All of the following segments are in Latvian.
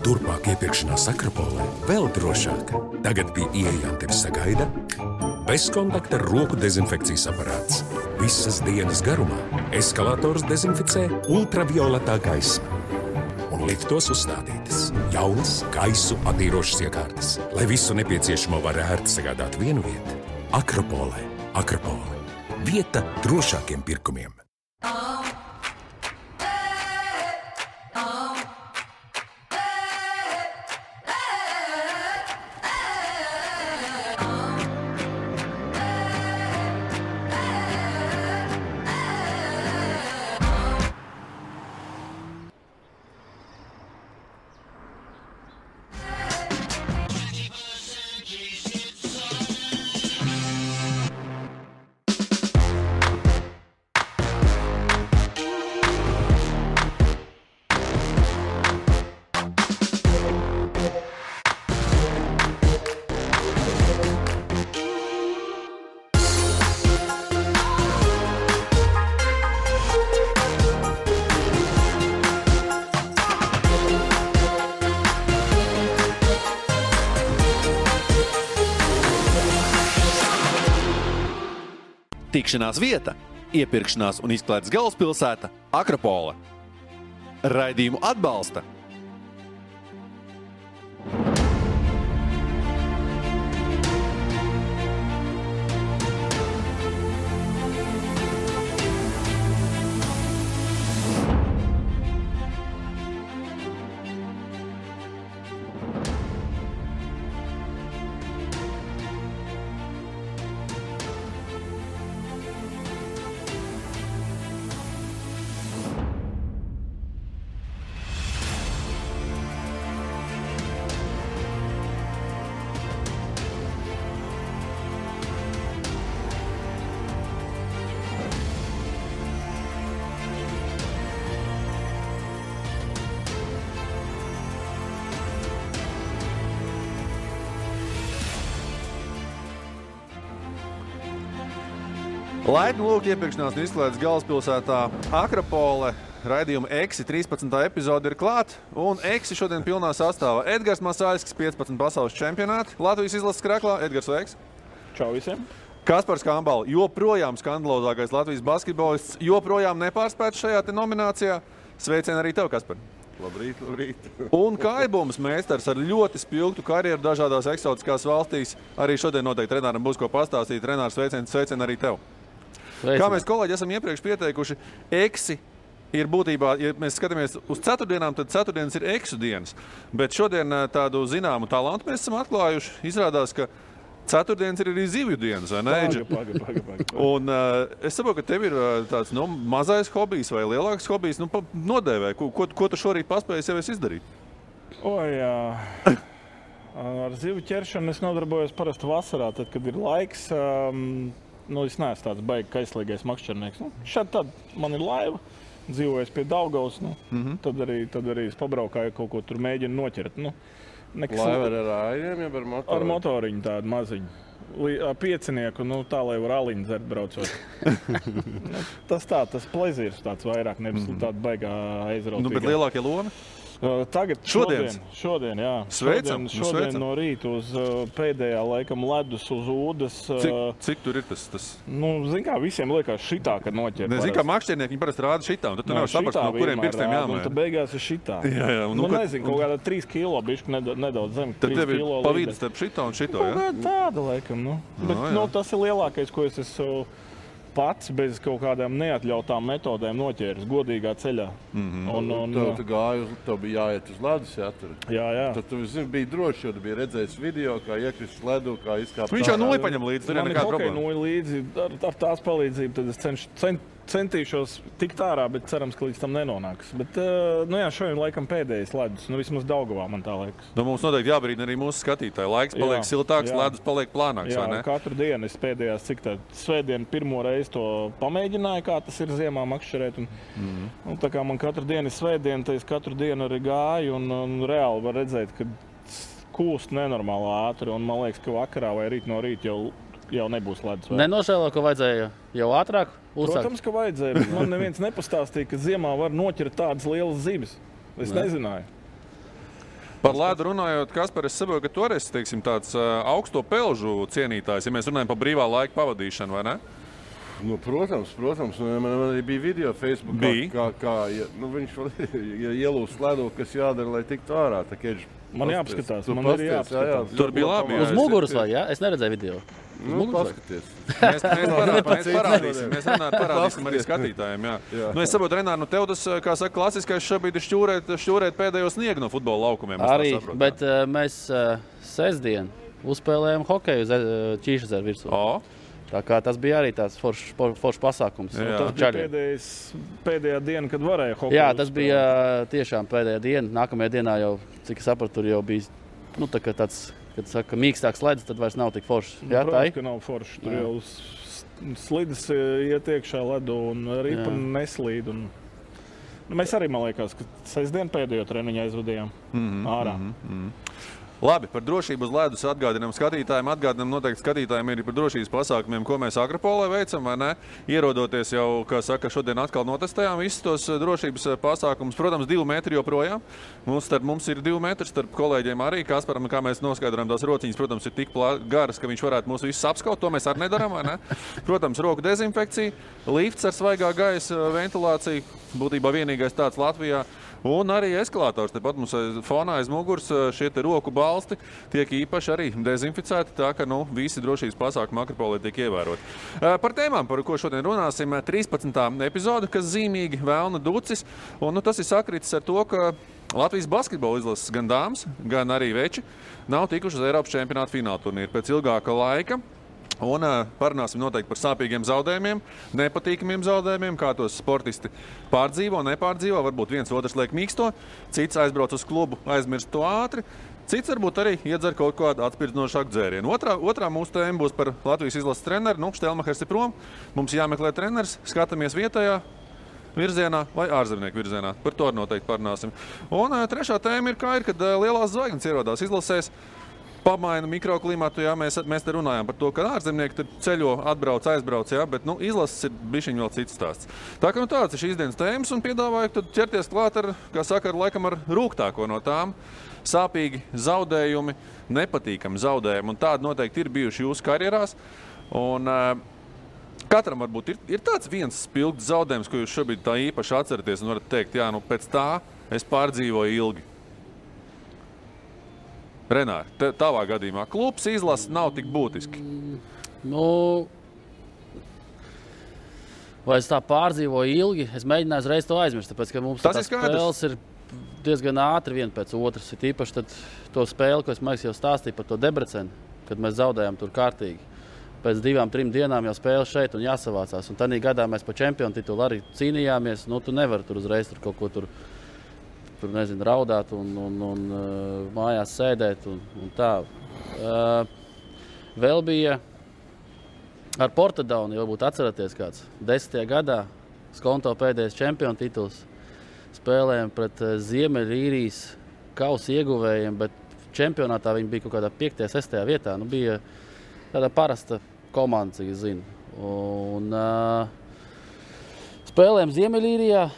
Turpmāk iepirkšanās Akropolē vēl drošāk. Tagad pie ieejām tevi sagaida bezkontakta roku dezinfekcijas aparāts. Visas dienas garumā eskalators dezinficē ultravioletā gaisma. Un liftos uzstādītas jaunas gaisu attīrošas iekārtas, lai visu nepieciešamo var ērti sagādāt vienu vietu. Akropolē. Akropole. Vieta drošākiem pirkumiem. Tikšanās vieta, iepirkšanās un izklaides galvaspilsēta Akropole. Raidījumu atbalsta Laipni lūk iepirkšanās un izklaides galvaspilsētā Akropole. Raidījuma Eksi 13. epizode ir klāt, un Eksi šodien pilnā sastāvā Edgars Masāļskis, 15 pasaules čempionāti. Latvijas izlases krāklā. Edgars, sveiks! Čau visiem! Kaspars Kambala, joprojām skandalozākais Latvijas basketbolists, joprojām nepārspēts šajā te nominācijā. Sveicien arī tev, Kaspar! Labrīt, labrīt! Un Kaibums meistars ar ļoti spilgtu karjeru dažādās eksotiskās valstīs. Arī šodien noteikti treneram būs ko pastāstīt. Trenārs, sveicien arī tev! Sveicien. Kā mēs kolēģi esam iepriekš pieteikuši, Eksi ir būtībā, ja mēs skatāmies uz ceturtdienām, tad ceturtdienas ir Eksu dienas. Bet šodien tādu zināmu talantu mēs esam atklājuši. Izrādās, ka ceturtdienas ir arī zivju dienas, vai ne? Paga. Un es saprotu, ka tev ir tāds mazais hobijs vai lielāks hobijs. Nodēvē, ko tu šorīt paspējies jau izdarīt? Ar zivju ķeršanu es nodarbojos parasti vasarā, tad, kad ir laiks. Es neesmu tāds baigi kaislīgais makšķernieks. Šādi tad man ir laiva, dzīvojos pie Daugavas. Tad arī es pabraukāju, kaut ko tur mēģinu noķert. Laiva ar ājiem, ja ar motoriņu? Ar motoriņu tādu maziņu. Piecinieku, tā, lai var aliņu dzert braucot. Tas plezīrs tāds vairāk, nevis tāda baigā aizrautīgā. Bet lielākie lomi? Tagad šodien, jā. Sveicam, šodien no rīta uz pēdējā laikam ledus uz ūdas. Cik tur ir tas? Zin kā, visiem liekas šitā, kad noķer. Zin kā, makšķernieki viņi parasti rāda šitā, un tad tu nevar saprast, no kuriem pirkstiem jāmēr. Un tad beigās ir šitā. Jā. Nezinu, kaut kādā 3 kilo, bišķi nedaudz zem. Tad tev ir pa vidu starp šito un šito, jā? Tāda laikam, Bet tas ir lielākais, ko es esmu pats bez kaut kādām neatļautām metodēm noķēris godīgā ceļā. Tu gāji, tev bija jāiet uz ledus, jā? Jā. Tad tu biji droši, jo tu biji redzējis video, kā iekrist ledu, kā izkāpt. Viņš jau nulli paņem līdzi, tur ir nekāda problēma. Man ir nulli līdzi, ar tās palīdzību, tad es centīšos tikt ārā, bet cerams, ka līdz tam nenonāks. Bet, šodien laikam pēdējais ledus, vismaz Daugavā man tā liekas. Mums noteikti jābrīd arī mūsu skatītāji. Laiks paliek siltāks, ledus paliek plānāks, vai ne? Jā, katru dienu es pēdējās, svētdienu pirmo reizi to pamēģināju, kā tas ir ziemā makšķerēt. Un tā kā man katru dienu ir svētdiena, tad es katru dienu arī gāju un reāli var redzēt, ka kūst nenormāli ātri. Un man liekas, ka vakarā vai rīt no rīta jau nebūs ledus. Nenožēlo, ka vajadzēja jau ātrāk uzsākt? Protams, ka vajadzēja, bet man neviens nepastāstīja, ka ziemā var noķert tādas lielas zivis. Es nezināju. Par ledu runājot, Kaspar, es saprotu, ka tu arī esi, teiksim, tāds augsto pelžu cienītājs, ja mēs runājam par brīvā laika pavadīšanu, vai ne? Nu, protams. Man arī bija video Facebook, kā viņš ielūst ledu, kas jādara, lai tiktu ārā. Man jāpaskatās, man arī jāpaskatās. Tur bija labi. Uz muguras vai, jā? Es neredzēju video. Paskaties. Mēs parādīsim arī skatītājiem, jā. Nu, es saprotu, Renār, nu tev tas, kā saka, klasiskais šobrīd ir šķūrēt pēdējo sniegu no futbola laukumiem. Arī, bet mēs sestdien uzspēlējām hokeju uz Ķīšezeru virsū. Tā kā tas bija arī tāds foršs pasākums. Pēdējā diena, kad varēja hokeju. Jā, tas bija tiešām pēdējā diena. Nākamajā dienā jau, cik es sapratu, tur jau bija tāds, kad saka, mīkstāks ledus, tad vairs nav tik foršs. Jā, protams, ka nav foršs. Tur jau slidis iet iekšā ledu un ripa neslīd. Mēs arī, man liekas, ka sestdien pēdējo treniņu aizvadījām ārā. Labi, par drošību uz ledus atgādinām skatītājiem. Atgādinām noteikti skatītājiem arī par drošības pasākumiem, ko mēs Akropolē veicam, vai ne? Ierodoties jau, kā saka, šodien atkal notestējām visus tos drošības pasākumus. Protams, 2 metri joprojām. Mums ir 2 metri starp kolēģiem arī. Kasparam, kā mēs noskaidrojam, tās rociņas, protams, ir tik garas, ka viņš varētu mūs visus apskaut. To mēs arī nedarām, vai ne? Protams, roku dezinfekcija, lifts ar svaigā gaisa ventilāciju. Būtībā vienīgais tāds Latvijā. Un arī eskalātors. Tepat mums fonā aiz muguras šie te roku balsti tiek īpaši arī dezinficēti, tā ka visi drošības pasākumi Akropolē tiek ievēroti. Par tēmām, par ko šodien runāsim, 13. epizode, kas zīmīgi Velna Ducis. Un tas ir sakritis ar to, ka Latvijas basketbola izlases gan dāmas, gan arī veči nav tikuši uz Eiropas čempionāta fināla turnīru pēc ilgāka laika. Un parunāsim noteikti par sāpīgiem zaudējumiem, nepatīkamiem zaudējumiem, kā tos sportisti pārdzīvo, nepārdzīvo. Varbūt viens otrs liek mīksto, cits aizbrauc uz klubu, aizmirst to ātri. Cits varbūt arī iedzer kaut kādu atspirdzinošāku dzērienu. Otrā mūsu tēma būs par Latvijas izlases treneru. Štelmachers ir prom, mums jāmeklē treneris, skatāmies vietējā virzienā vai ārzemnieku virzienā. Par to noteikti parunāsim. Un trešā tēma ir, kad lielās zvaigznes ierodās izlasēs. Pamaina mikroklimatu, jā, mēs te runājām par to, ka ārzemnieki ceļo, atbrauc, aizbrauc, jā, bet izlases ir bišķiņ vēl cits stāsts. Tā kā tāds ir šīs dienas tēmas un piedāvāju tad ķerties klāt ar, kā saka, laikam ar rūgtāko no tām. Sāpīgi zaudējumi, nepatīkami zaudējumi, un tādi noteikti ir bijuši jūsu karjerās. Un katram varbūt ir tāds viens spilgts zaudējums, ko jūs šobrīd tā īpaši atceraties un varat teikt, jā, pēc tā es pārdzīvoju ilgi. Renār, tavā gadījumā klubs izlase nav tik būtiski. Vai es tā pārdzīvoju ilgi? Es mēģināju uzreiz to aizmirst, tāpēc, ka mums tās spēles ir diezgan ātri viena pēc otras. Ir īpaši to spēli, ko es jau stāstīju par to Debrecenu, kad mēs zaudējām tur kārtīgi. Pēc 2-3 dienām jau spēle šeit un jāsavācās. Un tādā gadā mēs par čempionu titulu arī cīnījāmies. Tu nevari tur uzreiz kaut ko tur raudāt un mājās sēdēt un tā. Vēl bija ar Portadaunu, jau būtu atceraties kāds. 10. gadā Skonto pēdējais čempionu tituls. Spēlējām pret Ziemeļīrijas kausa ieguvējiem, bet čempionātā viņi bija kaut kādā 5. 6. vietā. Bija tāda parasta komanda, cik es zinu. Un spēlējām Ziemeļīrijā.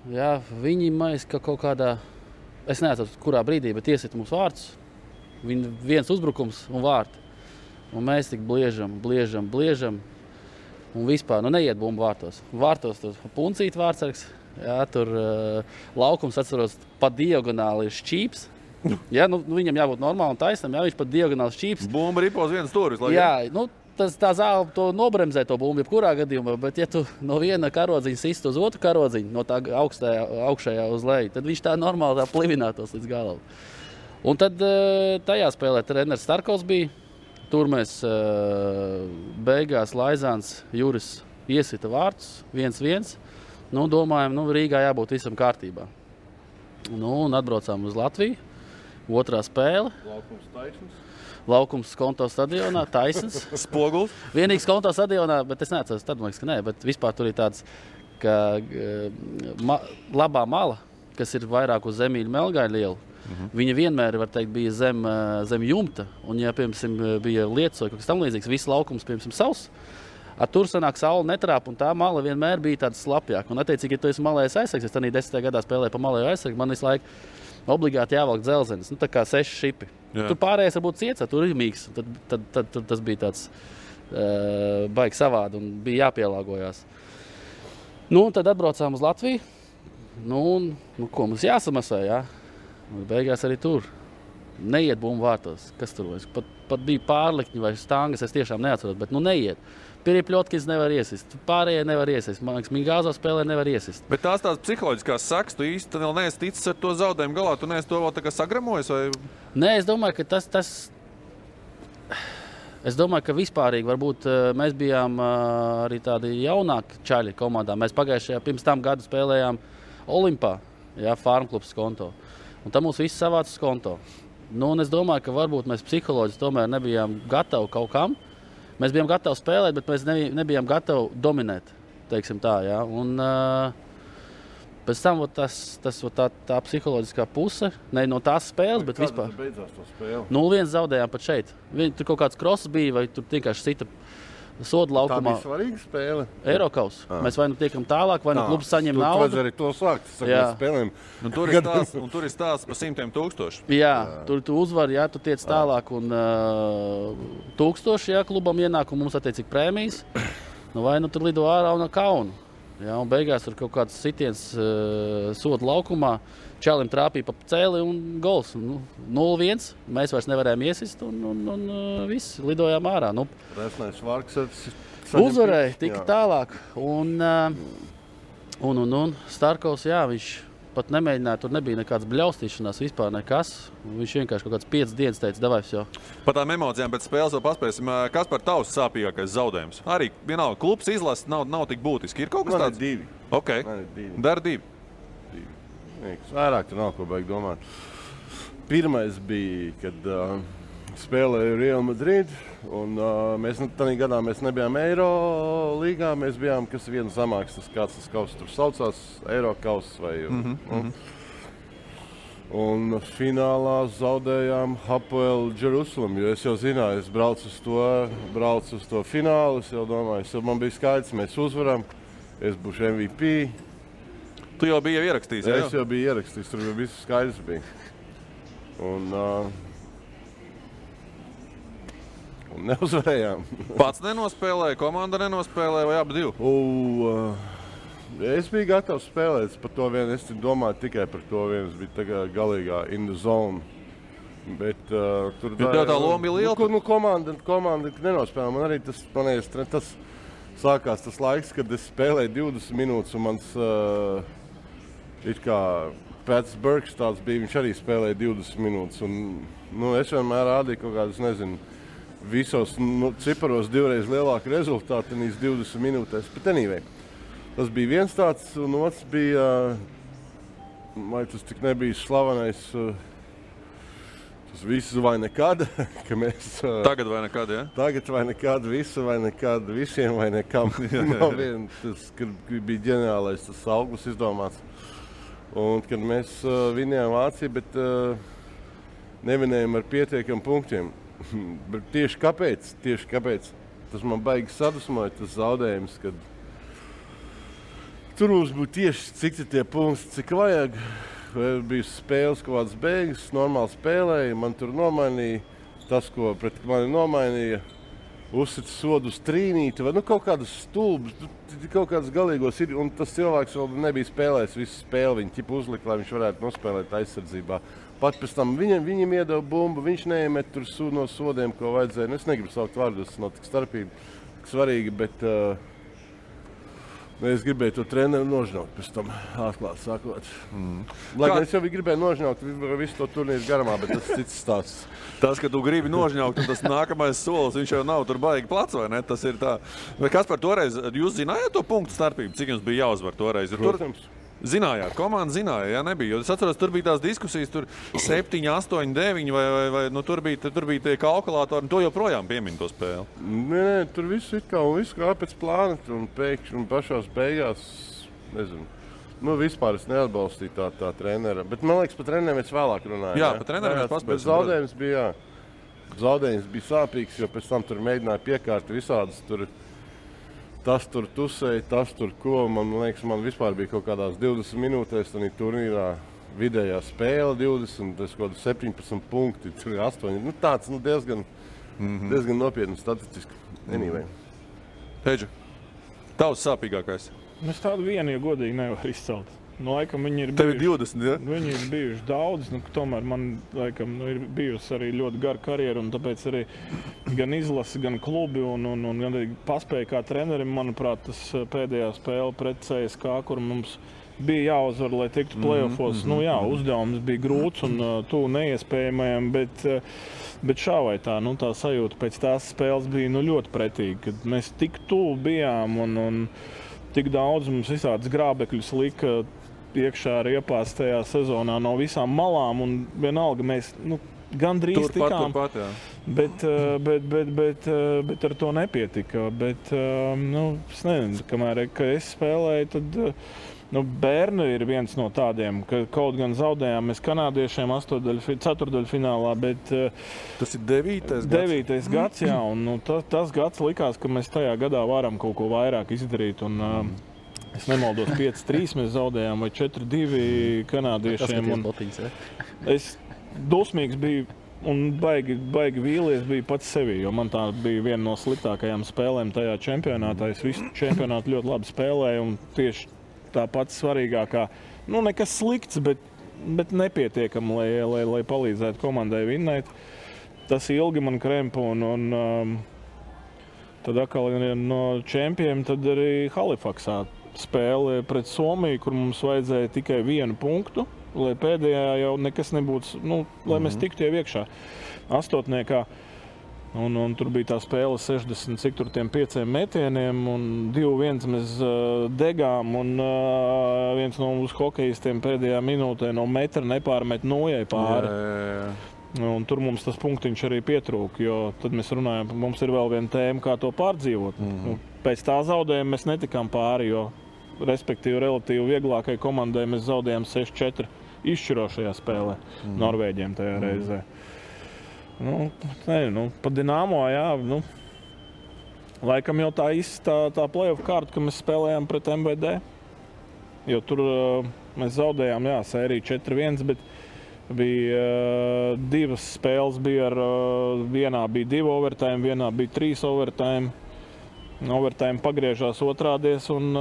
Jā, viņi mēs kaut kādā, es neatceros, kurā brīdī, bet iesit mums vārtus. Viņi viens uzbrukums un vārti. Un mēs tik bliežam. Un vispār, neiet bumbu vārtos. Vārtos tur puncīt vārtsargs. Jā, tur laukums, atceros, pa diagonāli ir šķīps. Jā, viņam jābūt normāli un taisnam, jā, viņš pa diagonāli šķīps. Bumba ripo uz vienas stūris. Jā, tā zāle to nobremzē to bumbu, jebkurā gadījumā, bet ja tu no viena karodziņa sist uz otru karodziņu, no tā augšējā uz leju, tad viņš tā normāli plivinātos līdz galam. Un tad tajā spēlē treneris Starkovs bija. Tur mēs beigās Laizāns Juris iesita vārtus 1-1. Domājam, Rīgā jābūt visam kārtībā. Un atbraucām uz Latviju. Otrā spēle. Laukums Skonto stadionā, taisns. Spoguls. Vienīgs Skonto stadionā, bet es neatceros, tad man liekas, ka nē, bet vispār tur ir tāds, ka labā mala, kas ir vairāk uz Zemīļa Melgāļa lielu, viņa vienmēr, var teikt, bija zem jumta, un ja, piemēram, bija lietas vai kaut kas tam līdzīgs, viss laukums, piemēram, savs, tur sanāk saule netrāp, un tā mala vienmēr bija tāda slapjāka. Un attiecīgi, ja tu esi malējais aizsargs, es tādā 10. gadā spēlēju pa malēju aizsargu, man visu laiku obligāti jāvelk dzelzenis, tā kā 6 šipi. Tur pārējais varbūt ciets, tur ir mīgs. Tad tas bija tāds baigi savādi un bija jāpielāgojās. Tad atbraucām uz Latviju. Ko mums jāsamasē, jā? Beigās arī tur. Neiet bumbu vārtos. Kas tur vairs? Pat bija pārlikņi vai stangas, es tiešām neatceros, bet neiet. Piripļotkis nevar iesist, pārējie nevar iesist. Man liekas, Mingāzo spēlē nevar iesist. Bet tās psiholoģiskās sekas, tu īsti vēl neesi ticis ar to zaudējumu galā, tu neesi to vēl tā kā sagramojies? Vai? Nē, es domāju, ka tas... Es domāju, ka vispārīgi varbūt mēs bijām arī tādi jaunāki čaļi komandā. Mēs pagājušajā pirms tam gadu spēlējām Olimpā, Farmklubs konto. Un tam mums viss savāca konto. Un es domāju, ka varbūt mēs psiholoģiski tomēr nebijām gatavi kaut kam. Mēs bijām gatavi spēlēt, bet mēs nebijām gatavi dominēt, teiksim tā, jā. Un pēc tam tā psiholoģiskā puse, ne no tās spēles, bet vispār. Kāda beidzās to spēli? 0-1 zaudējām pat šeit. Tur kaut kāds kross bija, vai tur vienkārši sita soda laukumā. Tā bija svarīga spēle? Eirokaus. Mēs vai tiekam tālāk, vai klubs saņem naudu. Tur vajag arī to sākt, spēlēm. Tur ir stāsts par 100,000. Jā, tur tu uzvari, tu tiec tālāk un 1000, klubam ienāk un mums attiecīgi prēmijas. Vai tur lido ārā un kaunu. Un beigās tur kaut kāds sitiens soda laukumā. Čalim trāpīja pa cēli un gols. 0-1. Mēs vairs nevarējām iesist un viss lidojām ārā. Resnais Varks uzvarēja, tika tālāk. Un Starkovs, viņš pat nemēģināja, tur nebija nekāds bļaustīšanās, vispār nekas. Viņš vienkārši kaut kāds 5 dienas teica, davais jau. Par tām emocijām pēc spēles vēl paspēsim. Kas par tavs sāpīgākais zaudējums? Arī vienalga, klubs izlases nav tik būtiski. Ir kaut kas tāds? Man ir 2. Okay. Man ir 2. Dar 2. Vairāk tur nav ko baigi domāt. Pirmais bija, kad spēlēju Real Madrid, un mēs tādā gadā mēs nebijām Eiro līgā, mēs bijām, kas viena zamāks, kāds tas kaus tur saucās, Eiro kaus vai... Un finālā zaudējām Hapoel Jerusalem, jo es jau zināju, es braucu uz to finālu, es jau domāju, man bija skaidrs, mēs uzvaram, es būšu MVP. Tu jau biji ierakstījis, jā? Es jau biju ierakstījis, tur viss skaidrs bija. Un neuzvarējām. Pats nenospēlēja, komanda nenospēlēja vai abi divi? Es biju gatavs spēlēt par to vienu, es domāju tikai par to vienu, es biju tagad galīgā in the zone. Bet tur tā loma bija liela? Komanda nenospēlēja, man arī tas sākās tas laiks, kad es spēlēju 20 minūtes un mans it kā Pats Burks tāds bija, viņš arī spēlēja 20 minūtes. Un, es vienmēr rādīju kaut kādus, nezinu, visos ciparos divreiz lielāku rezultātu tenīs 20 minūtēs. Bet anyway, tas bija viens tāds, un otrs bija, vai tas tik nebija slavenais, tas viss vai nekad, ka mēs... Tagad vai nekad, ja? Tagad vai nekad, visu vai nekad, visiem vai nekam. Nav vien, tas, kad bija ģeniālais tas auglis izdomāts. Un kad mēs vinējām Vāciju, bet nevinējām ar pietiekam punktiem. Bet tieši kāpēc? Tas man baigi sadusmoja, tas zaudējums, kad tur mums būtu tieši cik tie punkti, cik vajag. Bija spēles kaut kādas beigas, normāli spēlēja, man tur nomainīja tas, ko pret mani nomainīja. Uzsita sodu uz trīnīti vai kaut kādas stulbas, kaut kādas galīgos ir. Un tas cilvēks vēl nebija spēlējis visu spēli, viņi ķipa uzlika, lai viņš varētu nospēlēt aizsardzībā. Pat pēc tam viņam iedeva bumbu, viņš neiemet tur no sodiem, ko vajadzēja. Es negribu saukt vārdus, tas nav tik starpīgi, tik svarīgi, bet es gribēju to treneru nožņaukt pēc tam, atklāt sakot. Lai gan es jau gribēju nožņaukt visu to turnīru garumā, bet tas cits stāsts. Tas, ka tu gribi nožņaukt, un tas nākamais solis, viņš jau nav tur baigi plats, vai ne? Tas ir tā. Vai kas par toreiz, jūs zinājāt to punktu starpību, cik jums bija jāuzvar toreiz? Protams. Zinājāt, komanda zināja, jā, nebija. Jo es atceros, tur bija tās diskusijas, tur 7, 8, 9, vai tur bija tie kalkulātori, un to joprojām piemin to spēli. Nē, tur viss kā pēc plāna, un pēkšņi un pašās beigās, nezinu. Vispār es neatbalstīju tā trenera, bet man liekas, par treneriem mēs vēlāk runājam. Jā, par treneriem mēs paspēsim. Zaudējums bija sāpīgs, jo pēc tam tur mēģināja piekārt visādas tur. Tas tur tusēja, tas tur ko. Man liekas, man vispār bija kaut kādās 20 minūtēs tādā turnīrā vidējā spēle 20, tas kaut 17 punkti, 8. Nu, tāds diezgan nopietni statistiski. Anyway. Heidža, tavs sāpīgākais? Es tādu vienu, ja godīgi nevaru izcelt. Nu, laikam viņi ir Tev ir 20, ja? Viņi ir bijuši daudz, tomēr man laikam ir bijusi arī ļoti gara karjera, un tāpēc arī gan izlasi, gan klubi, un gan arī paspēja kā trenerim, manuprāt, tas pēdējā spēle pret CSK, kur mums bija jāuzvar, lai tiktu play-offos. Nu jā, uzdevums bija grūts un tuvu neiespējamajam, bet šā vai tā, tā sajūta pēc tās spēles bija ļoti pretīga, kad mēs tik tuvu bijām un tik daudz mums visādas grābekļus lika iekšā riepās tajā sezonā no visām malām, un vienalga mēs gandrīz tikām, turpat, jā. Bet ar to nepietika. Bet, es nezinu, kamēr es spēlēju, tad Bērni ir viens no tādiem, ka kaut gan zaudējām mēs kanādiešiem ceturtdaļfinālā, bet tas ir 9. gads, jā, un tas gads likās, ka mēs tajā gadā varam kaut ko vairāk izdarīt, un es nemaldos 5-3 mēs zaudējām vai 4-2 kanādiešiem. Es dusmīgs biju un baigi vīlies biju pats sevi, jo man tā bija viena no sliktākajām spēlēm tajā čempionātā. Es visu čempionātu ļoti labi spēlēju un tieši tā pats svarīgākā, nekas slikts, bet nepietiekam, lai palīdzētu komandai vinnēt. Tas ilgi man krempa un tad atkal no čempiem tad arī Halifaksā spēle pret Somiju, kur mums vajadzēja tikai 1 punktu, lai pēdējā jau nekas nebūtu, lai mēs tiktu jau iekšā astotniekā. Un tur bija tā spēle 65 metieniem un 2-1 mēs degām un viens no mūsu hokejistiem pēdējā minūtē no metra nepārmet nojai pāri. Un tur mums tas punktiņš arī pietrūka, jo tad mēs runājam, mums ir vēl viena tēma, kā to pārdzīvot. Pēc tā zaudējuma mēs netikām pāri, jo respektīvi relatīvi vieglākai komandai mēs zaudējām 6-4 izšķirošajā spēlē Norvēģiem tajā reizē. Pa Dinamo, jā, laikam jau tā play-off kārta, ka mēs spēlējām pret MVD, jo tur mēs zaudējām, jā, sēriju 4-1, bet bija 2 spēles, vienā bija 2 overtime, vienā bija 3 overtime. Overtime pagriežās otrādies un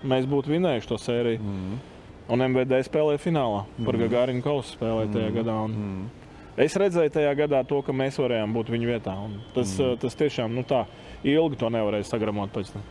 mēs būtu vinējuši to sēriju. Un MVD spēlēja finālā, par Gagarin kausu spēlēja tajā gadā. Es redzēju tajā gadā to, ka mēs varējām būt viņu vietā. Tas tiešām, tā ilgi to nevarēja sagramot pēc tam.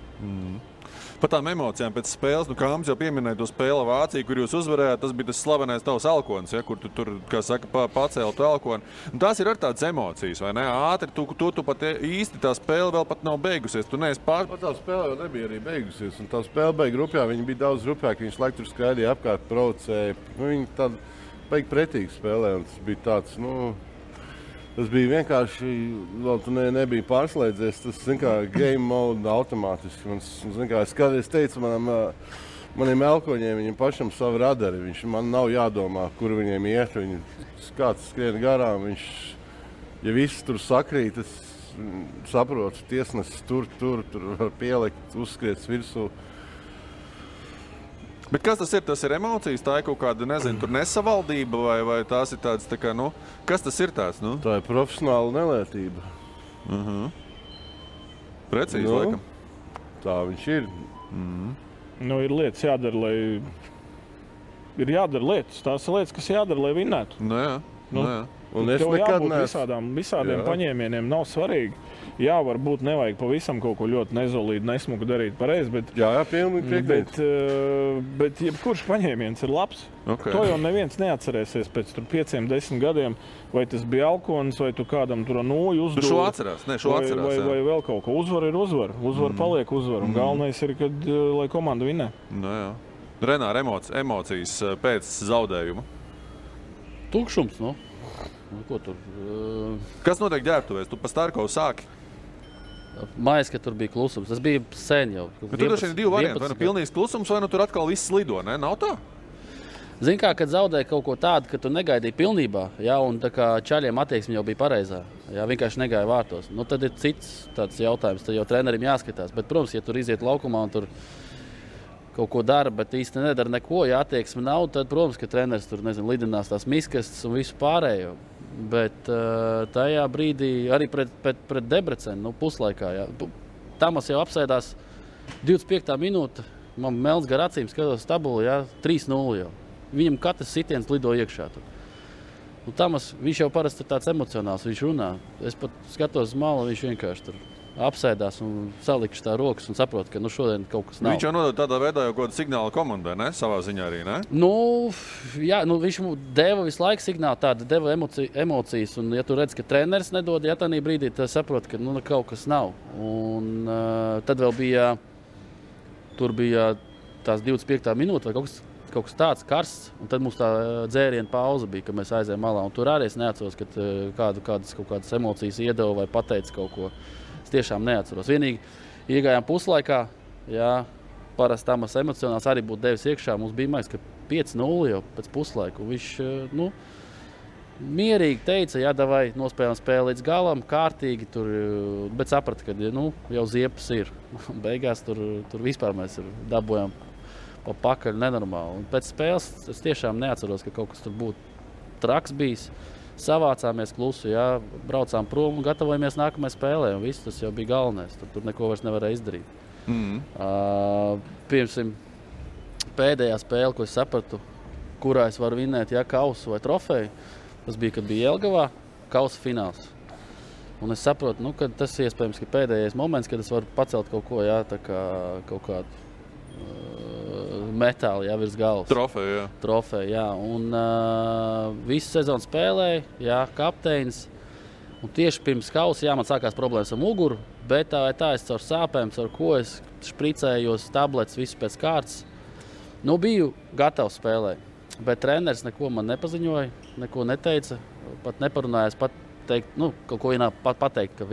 Par tām emocijām pēc spēles, Kāms jau pieminēja to spēli Vāciju, kur jūs uzvarējāt, tas bija tas slavenais tavs elkonis, ja, kur tu tur, kā saka, pacēli to elkoni. Tās ir ar tādas emocijas, vai ne? Ātri, tu pat īsti tā spēle vēl pat nav beigusies. Tu neesi Tā spēle jau nebija arī beigusies, un tā spēle beig grupjā, viņi bija daudz grupjāki, viņš laiku tur skraidīja apkārt, provocēja. Viņi tādi beig pretīgi spēlē, un tas bija tāds, tas bija vienkārši, vēl tu nebija pārslēdzies, tas, game mode automātiski. Es teicu maniem elkoņiem, viņiem pašam savu radari, man nav jādomā, kur viņiem iet, kāds skrien garām, ja viss tur sakrīt, es saprotu, tiesnesis tur var pielikt, uzskriets virsū. Bet kas tas ir? Tas ir emocijas, tā ir kaut kāda, nezinu, tur nesavaldība vai tās ir tādas, kas tas ir tāds? Tā ir profesionāla nelētība. Precīzi, laikam. Tā viņš ir. Ir lietas jādara, ir jādara lietas. Tās ir lietas, kas jādara, lai vinnētu. Jā. Un es tev nekad jābūt visādiem paņēmieniem, nav svarīgi. Jā, varbūt nevajag pavisam kaut ko ļoti nezolīdu, nesmuku darīt pareizi, bet... Jā, pilnīgi piekrīt. Bet jebkurš paņēmiens ir labs. Okay. To jau neviens neatcerēsies pēc 5-10 gadiem, vai tas bija alkonis, vai tu kādam tur noju uzdod. Šo atcerās, vai vēl kaut ko. Uzvar ir uzvar. Uzvar paliek uzvar. Un galvenais ir, lai komanda vinnē. Jā. Renār, emocijas pēc zaudējuma? Tukšums, Ko tur? Kas notiek ģērbtuvēs? Tu pa Starkovu sāki? Mājas, ka tur bija klusums. Tas bija sen jau. Bet tur ir 2 varianti. Vai pilnīgs klusums, vai tur atkal viss lido, ne? Nav tā? Zini kā, kad zaudēji kaut ko tādu, ka tu negaidīji pilnībā, un tā kā čaļiem attieksme jau bija pareizā, vienkārši negāja vārtos. Tad ir cits tāds jautājums, tad jau trenerim jāskatās. Bet, protams, ja tur iziet laukumā un tur kaut ko dara, bet īsti nedara neko, ja attieksme nav, tad, protams, ka treneris tur, lidinās tās miskastes un visu pārējo. Bet tajā brīdī arī pret Debrecenu, puslaikā, jā. Tamas jau apsēdās 25. minūte, man melns gar acīm skatos tabulu, jā, 3-0 jau. Viņam katrs sitiens lido iekšā tur. Tamas, viņš jau parasti ir tāds emocionāls, viņš runā. Es pat skatos uz malu, viņš vienkārši tur apsēdās un salikšu tā rokas un saprot, ka šodien kaut kas nav. Viņš jau nodod tādā veidā jau kaut kādu signālu komandai, ne? Savā ziņā arī, ne? Jā, viņš deva visu laiku signālu, tāda deva emocijas, un ja tu redz, ka treneris nedod, ja tādā brīdī, tad saprot, ka kaut kas nav. Un tad vēl bija tās 25. minūte vai kaut kas tāds karsts, un tad mums tā dzēriena pauze bija, kad mēs aizējām malā, un tur arī es neatceros, ka kādas emocijas iedeva vai pateica kaut ko. Es tiešām neatceros. Vienīgi iegājām puslaikā, jā, parasti Tamas emocionāls arī būtu devis iekšā. Mums bija maiks, ka 5-0 jau pēc puslaika. Viņš mierīgi teica, jā, davai nospēlējam spēli līdz galam, kārtīgi tur, bet saprata, ka jau ziepas ir. Beigās tur vispār mēs dabojam pa pakaļ nenormāli. Un pēc spēles es tiešām neatceros, ka kaut kas tur būtu traks bijis. Savācāmies klusu, jā, braucām prom un gatavojamies nākamajai spēlē. Un viss tas jau bija galvenais. Tur neko vairs nevarēja izdarīt. Pirmsim, pēdējā spēle, ko es sapratu, kurā es varu vinēt, jā, kausu vai trofeju, tas bija, kad bija Jelgavā, kausa fināls. Un es saprotu, ka tas iespējams, ka pēdējais moments, kad es varu pacelt kaut ko, jā, tā kā kaut kādu metāli, jā, virs galvas. Trofeja, jā. Un visu sezonu spēlēju, jā, kapteinis. Un tieši pirms kausa, jā, man sākās problēmas ar muguru, bet tā es caur sāpēm, caur ko es špricējos, tablets, visu pēc kārtas. Biju gatavs spēlēt, bet treneris neko man nepaziņoja, neko neteica, pat neparunājās pateikt, kaut ko vienā pateikt, ka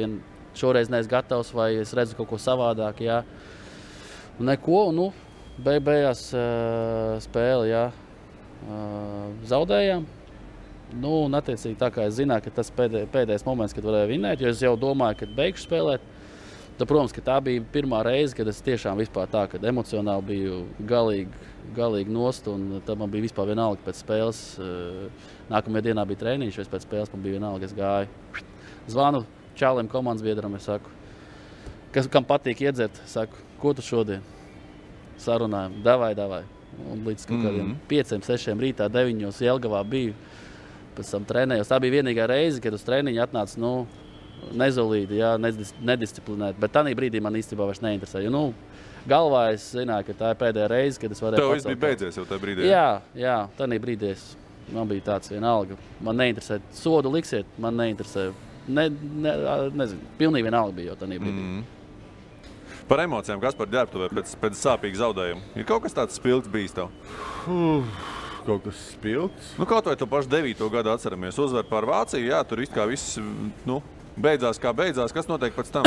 šoreiz neesmu gatavs vai es redzu kaut ko savādāk, jā. Neko, beigās spēli, jā, zaudējām. Un attiecīgi tā kā es zināju, ka tas pēdējais moments, kad varēju vinēt, jo es jau domāju, kad beigšu spēlēt. Tad, protams, ka tā bija pirmā reize, kad es tiešām vispār tā, kad emocionāli biju galīgi nost, un tad man bija vispār vienalga pēc spēles. Nākamajā dienā bija treniņš, pēc spēles man bija vienalga, es gāju. Zvanu čālim komandas biedram, es saku, kam patīk iedzert, saku, ko tu šodien? Sarunājam, davai. Un līdz kaut kādiem 5-6 rītā, 9 Jelgavā biju, pēc tam trenējos. Tā bija vienīgā reize, kad uz treniņu atnāca, nezolīti, jā, nedisciplinēti, bet tādā brīdī man īstenībā vairs neinteresēja. Galvā es zināju, ka tā ir pēdējā reize, kad es varēju pacelt. Tev viss bija beidzies jau tajā brīdī? Jā, tādā brīdī man bija tāds vienalga. Man neinteresē, sodu liksiet, man neinteresē. Nezinu, pilnīgi vienalga bija jau tādā brīdī. Par emocijām, Kaspar, ģērbtuvē pēc sāpīga zaudējuma. Ir kaut kas tāds spilgts bijis tev? Kaut kas spilgts? Kaut vai tu pašu 9. gadu atceramies. Uzvar pār Vāciju, jā, tur kā viss, beidzās kā beidzās. Kas notiek pēc tam?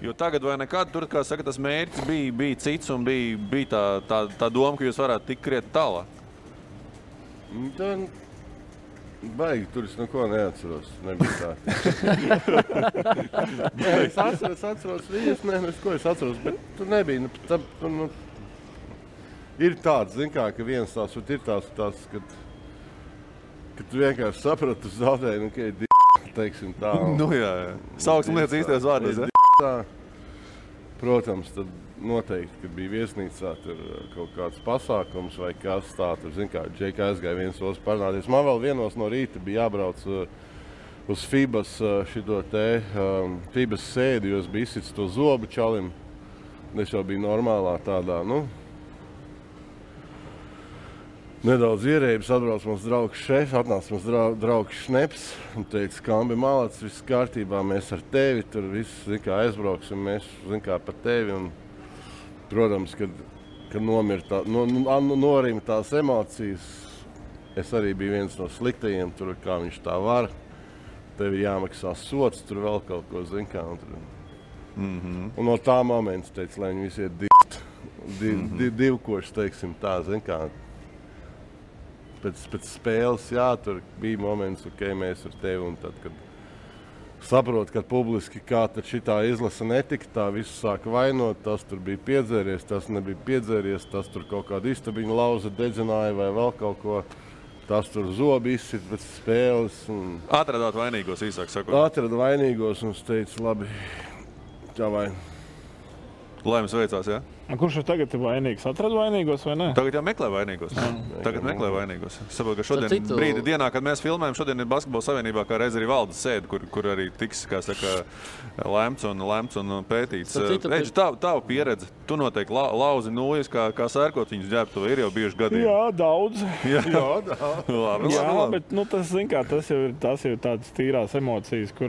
Jo tagad vai nekad, tur, kā saka, tas mērķis bija cits un bija tā doma, ka jūs varētu tikt krietni tālāk. Baigi, tur es neko neatceros. Nebija tā. Es atceros viņas, ko es atceros, bet tur nebija. Ir tāds, ka viens tās, ir tās, ka tu vienkārši saprati, tu zaudēji, ka ir teiksim tā. Jā. Sauksim lietas īstajos vārdos, tā. Protams, tad noteikti, kad bija viesnīcā tur kaut kāds pasākums vai kas tā, tur, Džeika aizgāja viens otrs parunāties. Man vēl vienos no rīta bija jābrauc uz FIBAS FIBAS sēdi, jo es biju izsits to zobu čalim. Es jau biju normālā tādā, nedaudz ierēbis, atbrauc mums draugs šefs, atnāca mums draugs Šneps un teica, Kambi Malacis, viss kārtībā, mēs ar tevi, tur viss, aizbrauksim, mēs, par tevi. Un, protams, kad norima tās emocijas, es arī biju viens no sliktajiem, tur, kā viņš tā var, tev ir jāmaksā sots, tur vēl kaut ko, Un no tā momenta teica, lai viņi visi iet divkoši, teiksim tā, Pēc spēles, jā, tur bija moments, mēs ar tevi, un tad, kad saprot, ka publiski kā tad šitā izlase netika, tā visu sāka vainot, tas tur bija piedzēries, tas nebija piedzēries, tas tur kaut kādu istabiņu lauza dedzināja vai vēl kaut ko, tas tur zobi izsit pēc spēles. Atradāt vainīgos, īsāk sakot. Atrada vainīgos un es teicu, labi, tā vai. Lai jums veicās, jā? Kurš ir tagad vainīgs? Atrad vainīgos vai ne? Tagad jau meklē vainīgos. Tagad meklē vainīgos. Es saprotu, ka šodien brīdi dienā, kad mēs filmējam, šodien ir Basketbola savienībā, kā reiz arī valdes sēde, kur arī tiks, kā saka, lemts un pētīts. Eģi, tavu pieredze, tu noteikti lauzi nūjas, kā sērkot viņus ģērbtu, ir jau bijuši gadījumi. Jā, daudz. Jā, daudz. Labi. Bet tas, zin kā, tas jau ir tādas tīrās emocijas, kur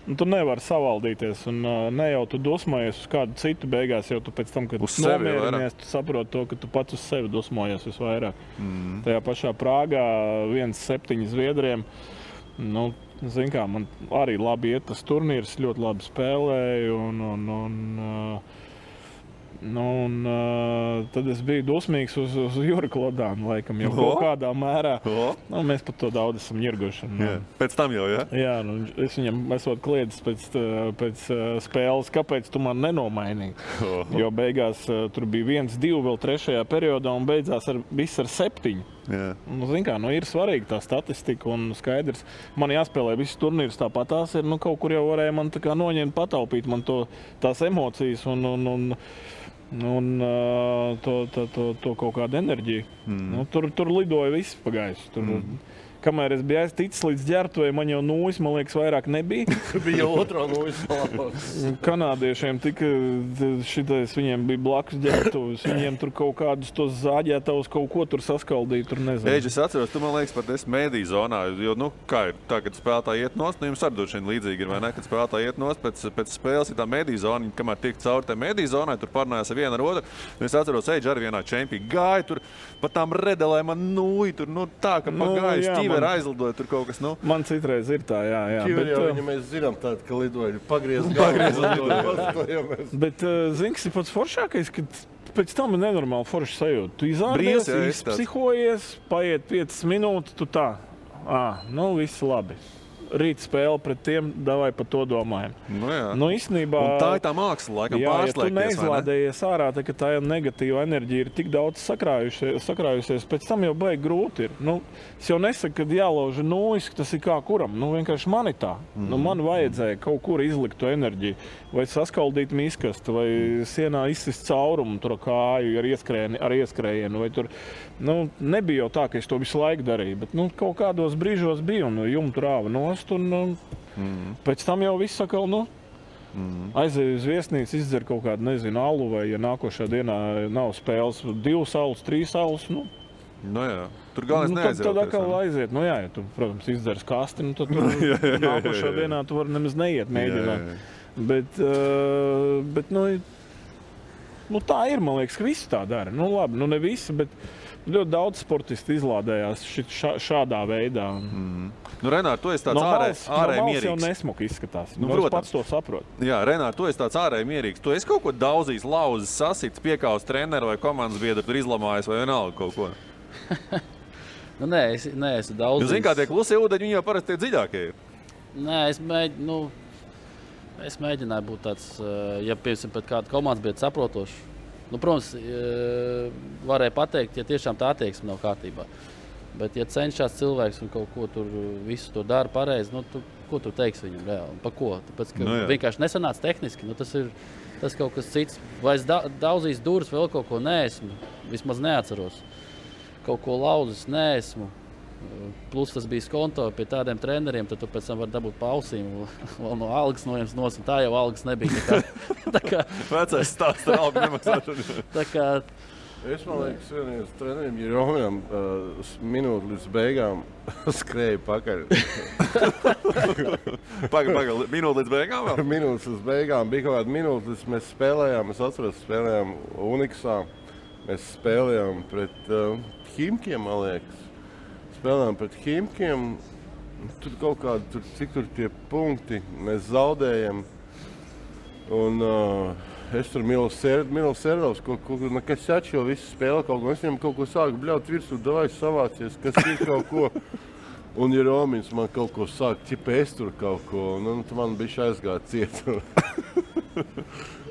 tu nevari savaldīties, un ne jau tu dosmojies uz kādu citu beigās, jau tu pēc tam, kad nomierinies, tu saproti to, ka tu pats uz sevi dosmojies visvairāk. Tajā pašā Prāgā 1-7 Zviedriem, zin kā, man arī labi iet tas turnīrs, ļoti labi spēlēju, tad es biju dosmīgs uz Juri Klodānu, laikam, jau kaut kādā mērā. Mēs pat to daudz esam ņirguši. Pēc tam jau, jā? Jā, es viņam esot kliedis pēc spēles, kāpēc tu man nenomainīji. Jo beigās tur bija 1-2 vēl 3. periodā un beidzās viss ar 7. Zin kā, ir svarīga tā statistika un skaidrs. Man jāspēlē visus turnīrus tāpat tās ir, kaut kur jau varēja man tā kā noņemt, pataupīt man tās emocijas un to kaut kādu enerģiju. Tur lidoja viss pagājis. Kamēr es biju aizticis līdz ģērbtuvei, man jau nūjas, man liekas, vairāk nebija. Bija otrā nūjas salāpās. Kanādiešiem šitais, viņiem bija blakus ģērbtuves, viņiem tur kaut kādus tos zāģētavus kaut ko tur saskaldīja, tur nezinu. Eģi, es atceros, tu man liekas pat esi mēdīju zonā, jo, kā ir tā, kad spēlētāji iet nost, jums arī došana līdzīgi ir, vai ne? Kad spēlētāji iet nost, pēc spēles ir tā mēdīju zona, kamēr tiek cauri tā mēdīju zonai, tur parunājās ar vienu ar otru. Es atceros, Eģi arī vienā čempī gāja tur, pat tām redelē man nūja tur, tā, ka pagājuši tīver aizlidoja tur kaut kas, Man citreiz ir tā, jā. Ķiver jau viņa mēs zinām tādu, ka lidoja pagriez galvu. Bet, zini, pats foršākais, ka pēc tam ir nenormāli forši sajūta. Tu izārdies, izpsihojies, paiet 5 minūtes, tu tā, viss labi. Rīt spēle pret tiem, davai par to domājam. Īstenībā, un tā ir tā māksla, laikam, pārslēgties, ja tu neizlādējies ārā, ka tā negatīva enerģija ir tik daudz sakrājusies, pēc tam jau baigi grūti ir. Es jau nesaku, ka jālauž nūjas, ka tas ir kā kuram. Vienkārši man ir tā. Man vajadzēja kaut kur izlikt to enerģiju. Vai saskaldīt miskastu, vai sienā izsist caurumu tur kāju ar ieskrējienu. Vai tur, nebija jau tā, ka es to visu laiku darīju, bet kaut kādos brīžos bija un jumtu rāva nost. Pēc tam jau viss sakal, aizēju uz viesnīcu, izdzer kaut kādu, nezinu, alu, vai ja nākošā dienā nav spēles 2 saules, 3 saules, Tur galvenais neaiziet. Tad atkal aiziet. Ja tu, protams, izdzers kasti, tad tur nākošā dienā tu vari nemaz neiet mēģināt. Bet tā ir, man liekas, ka visi tā dara. Labi, ne visi, bet ļoti daudz sportisti izlādējās šādā veidā. Renār, tu esi tāds ārēji mierīgs. Jau nesmuki izskatās. Protams. Pats to saprot. Jā, Renār, tu esi tāds ārēji mierīgs. Tu esi kaut ko daudzījis, lauzis, sasits, piekāvis treneru vai komandas biedru, tur izlamājis vai vienalga kaut ko? Nē, es neesmu daudzījis. Zini, kā tie klusie ūdeņi, viņi jau parasti tie dziļākie ir. Nē, es mēģināju būt tāds, ja piemēram pēc kāda komandas biedra saprotošs. Protams, varēja pateikt, ja tiešām tā attieksme nav kārtībā. Bet, ja cenšas cilvēks un kaut ko tur visu to dara pareizi, ko tu teiksi viņam reāli? Pa ko? Tāpēc, ka vienkārši nesanāca tehniski. Tas kaut kas cits. Vai es daudzīs durvis vēl kaut ko neesmu, vismaz neatceros. Kaut ko lauzis neesmu. Plus tas bija skonto pie tādiem treneriem, tad tu pēc tam vari dabūt pausīm vēl no algas noņems nos, un tā jau algas nebija. Tā kā vecais stāsts ar algu nemaksāšanu. Tā kā es, man liekas, vienīgais trenerim Jeromijam minūti līdz beigām skrēja pakaļ. Pagaid, minūti līdz beigām vēl? Minūtes līdz beigām. Bija kaut kāda minūte, līdz mēs spēlējām, es atceros, spēlējām Uniksā. Mēs spēlējām pret Himkiem, man liekas. Spēlējām pret Himkiem. Tur kaut kādi, cik tur tie punkti, mēs zaudējam. Un es tur Milos Serdovs, kas atšķo visu spēli kaut ko. Es viņam kaut ko sāku bļaut virsū, davai savācies, kas ir kaut ko. Un, ja Romins man kaut ko sāk, ķipa es tur kaut ko, nu, tu man bišķi aizgāja ciet.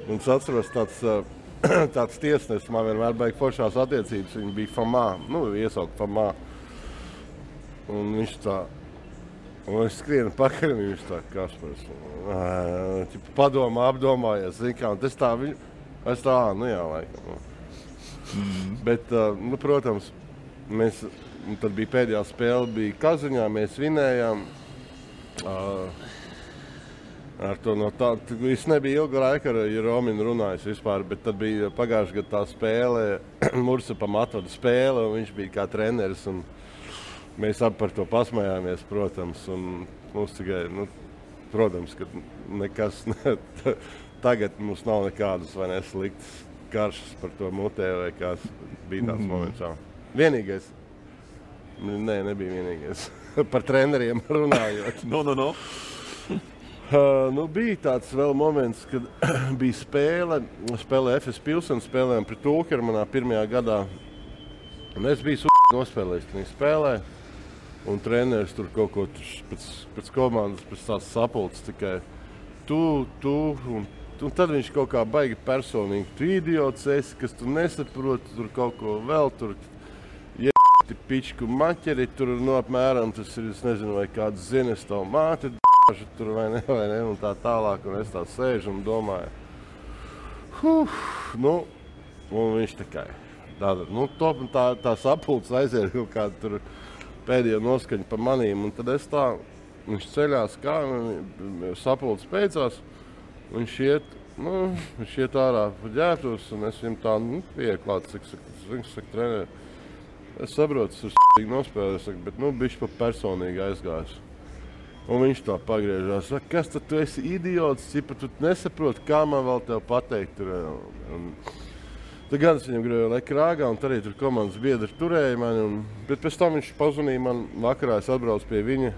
Un es atceros tāds tiesnesis, man vienmēr baigi foršās attiecības, viņa bija Famā, iesaukt Famā. Un viņš tā, un es skrienu pakaļ, un viņš tā, Kaspars, padomā, apdomājies, zin kā, un es tā, jā, laikam. Bet, protams, tad bija pēdējā spēle, bija Kaziņā, mēs vinējām. Ar to no tā, es nebija ilga laika ar Rominu runājis vispār, bet tad bija pagājušajā gadā tā spēle, Mursapam atvada spēle, un viņš bija kā treneris, un mēs abi par to pasmējāmies, protams, un mums tikai, protams, ka nekas, tagad mums nav nekādas vai nesliktas karšas par to mutē, vai kāds bija tāds moments. Vienīgais, nebija vienīgais, par treneriem runājot. No. Bija tāds vēl moments, kad bija spēle FS Pilsens, spēlējām pret Ulkeru manā pirmajā gadā. Un es biju nospēlējis, kad viņi spēlē. Un treneris tur kaut ko pēc komandas, pēc tās sapulces tikai tu. Un tad viņš kaut kā baigi personīgi. Tu idiots esi, kas tu nesaproti, tur kaut ko vēl tur. Pičku maķeri, tur apmēram tas ir, es nezinu, vai kāds zines tavu māti. Tur vai ne, un tā tālāk, un es tā sēžu un domāju. Un viņš tikai tā sapulces aiziet kaut kādu tur pēdējo noskaņu pa manīm, un tad es tā, viņš ceļās kā, sapulces beidzās, viņš iet ārā pa ģērbtos, un es viņam tā, pieklāt, cik saka treneri. Es saprotu, tas ir nospēlējis, bet, bišķi pa personīgi aizgājis. Un viņš tā pagriežās, saka, kas tad tu esi idiots, cipa tu nesaproti, kā man vēl tev pateikt. Tad gan es viņam gribēju leka rāgā, un arī tur komandas biedri turēja mani. Bet pēc tam viņš pazvanīja man vakarā, es atbraucu pie viņa.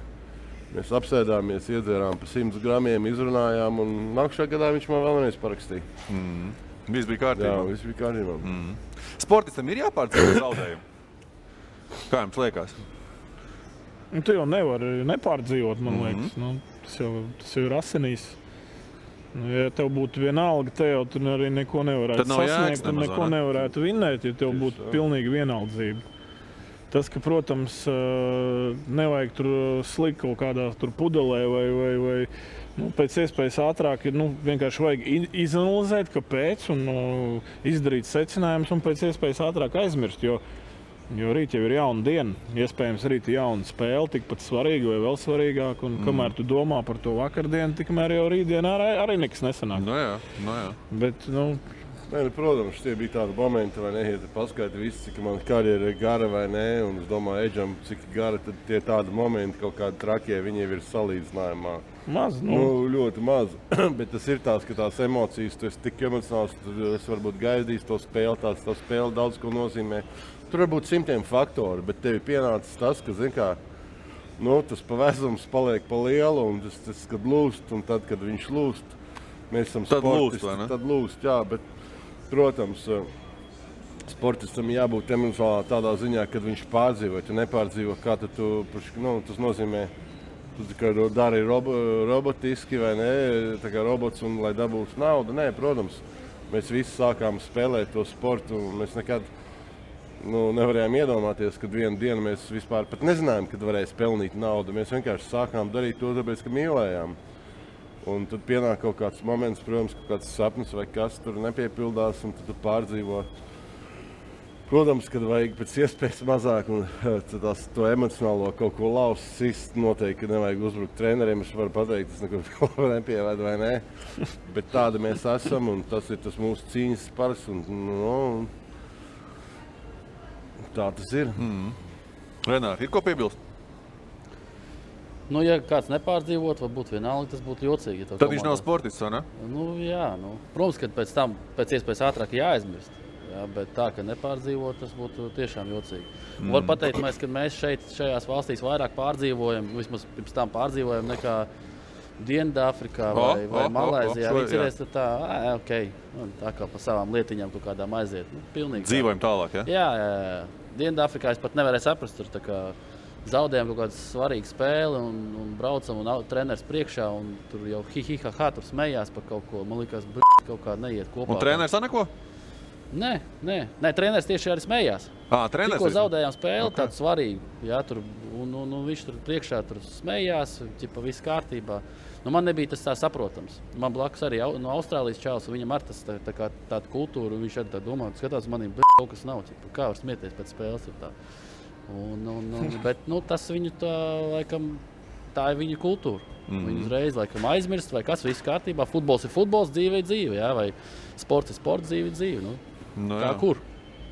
Mēs apsēdāmies, iedzērām pa 100 gramiem, izrunājām, un nākušā gadā viņš man vēl vienreiz parakstīja. Viss bija kārtībā. Jā, viss bija kārtībā. Sportistam ir jāpārdzīvo zaudējumu? Kā jums liekas? Tu jau nevari nepārdzīvot, man liekas. Tas jau ir asinīs. Ja tev būtu vienalga, tev tur arī neko nevarētu sasniegt un neko nevarētu vinnēt, ja tev būtu pilnīgi vienaldzība. Tas, ka, protams, nevajag tur slikt kaut kādā tur pudelē vai pēc iespējas ātrāk, vienkārši vajag izanalizēt, kāpēc, un izdarīt secinājumus un pēc iespējas ātrāk aizmirst, jo rīt jau ir jauna diena, iespējams rīt ir jauna spēle, tikpat svarīga vai vēl svarīgāk, un kamēr tu domā par to vakardienu, tikmēr jau rītdienā arī nekas nesanāk. No jā. Bet, protams, tie bija tādi momenti, vai ne, ja tu paskaiti visi, cik man karjera ir gara vai nē, un es domāju, Eģam, cik gara, tad tie tādi momenti, kaut kādi trakie, viņi ir salīdzinājumā. Maz, ļoti maz, bet tas ir tās, ka tās emocijas, tu esi tik emocionāls, es varbūt gaidījis to spēli, tā spēle daudz ko nozīmē. Tur var būt 100 faktori, bet tev ir pienācis tas, ka, zin kā, tas pavēzums paliek pa lielu, un tas, kad lūst, un tad, kad viņš lūst, mēs esam sportisti, tad lūst, jā, bet, protams, sportistam jābūt emocionālā tādā ziņā, kad viņš pārdzīvo, ja nepārdzīvo, kā tad tas nozīmē, tu tikai dari robotiski vai ne, tā kā robots, un lai dabūtu naudu, nē, protams, mēs visi sākām spēlēt to sportu, un mēs nekad nevarējām iedomāties, kad vienu dienu mēs vispār pat nezinājām, kad varēs pelnīt naudu. Mēs vienkārši sākām darīt to, tāpēc, ka mīlējām. Un tad pienāk kaut kāds moments, protams, kaut kāds sapnis vai kas tur nepiepildās, un tad tu pārdzīvo. Protams, kad vajag pēc iespējas mazāk, un to emocionālo kaut ko laust, noteikti nevajag uzbrukt treneriem. Es varu pateikt, tas nekur nepievēd vai nē. Bet tādi mēs esam, un tas ir tas mūsu cīņas spars. Tā tas ir. Renāri, ir ko piebilst? Ja kāds nepārdzīvot, varbūt vienalga, tas būtu jocīgi. Tad viņš nav sportists, vai ne? Jā. Protams, ka pēc tam pēc iespējas ātrāk jāaizmirst. Jā, bet tā, ka nepārdzīvot, tas būtu tiešām jocīgi. Var pateikt, ka mēs šajās valstīs vairāk pārdzīvojam, vismaz pirms tam pārdzīvojam nekā Dienvidāfrikā vai Malaizijā. Viņi cerēs tā, tā kā pa savām lietiņām kaut kādām aiziet. Pilnīgi. Dzīvojam tālāk, ja? Jā. Dienvidāfrikā es pat nevarēju saprast, tur tā kā zaudējām kaut kādu svarīgu spēli un braucam un treneris priekšā un tur jau hi-hi-ha-ha tur smējās par kaut ko. Man liekas, kaut kā neiet kopā. Un treneris neko? Nē, treneris tieši arī smējās. Treneris? Tikko zaudējām spēli, tādu svarīgu. Jā, tur, un viņš tur priekšā tur smējās, ķipa viss kārtībā. Nu, man nebija tas tā saprotams. Man blakus arī no Austrālijas čalis, un viņam ar tas tāda kultūra, un viņš arī tā domā, skatās manī, kaut kas nav, ķipa, kā var smieties pēc spēles. Tā. Bet tas viņu tā, laikam, tā ir viņa kultūra. Viņi uzreiz laikam aizmirst, vai kas viss kārtībā. Futbols ir futbols, dzīve ir dzīve, jā, vai sports ir sports, dzīve ir dzīve. Tā kur?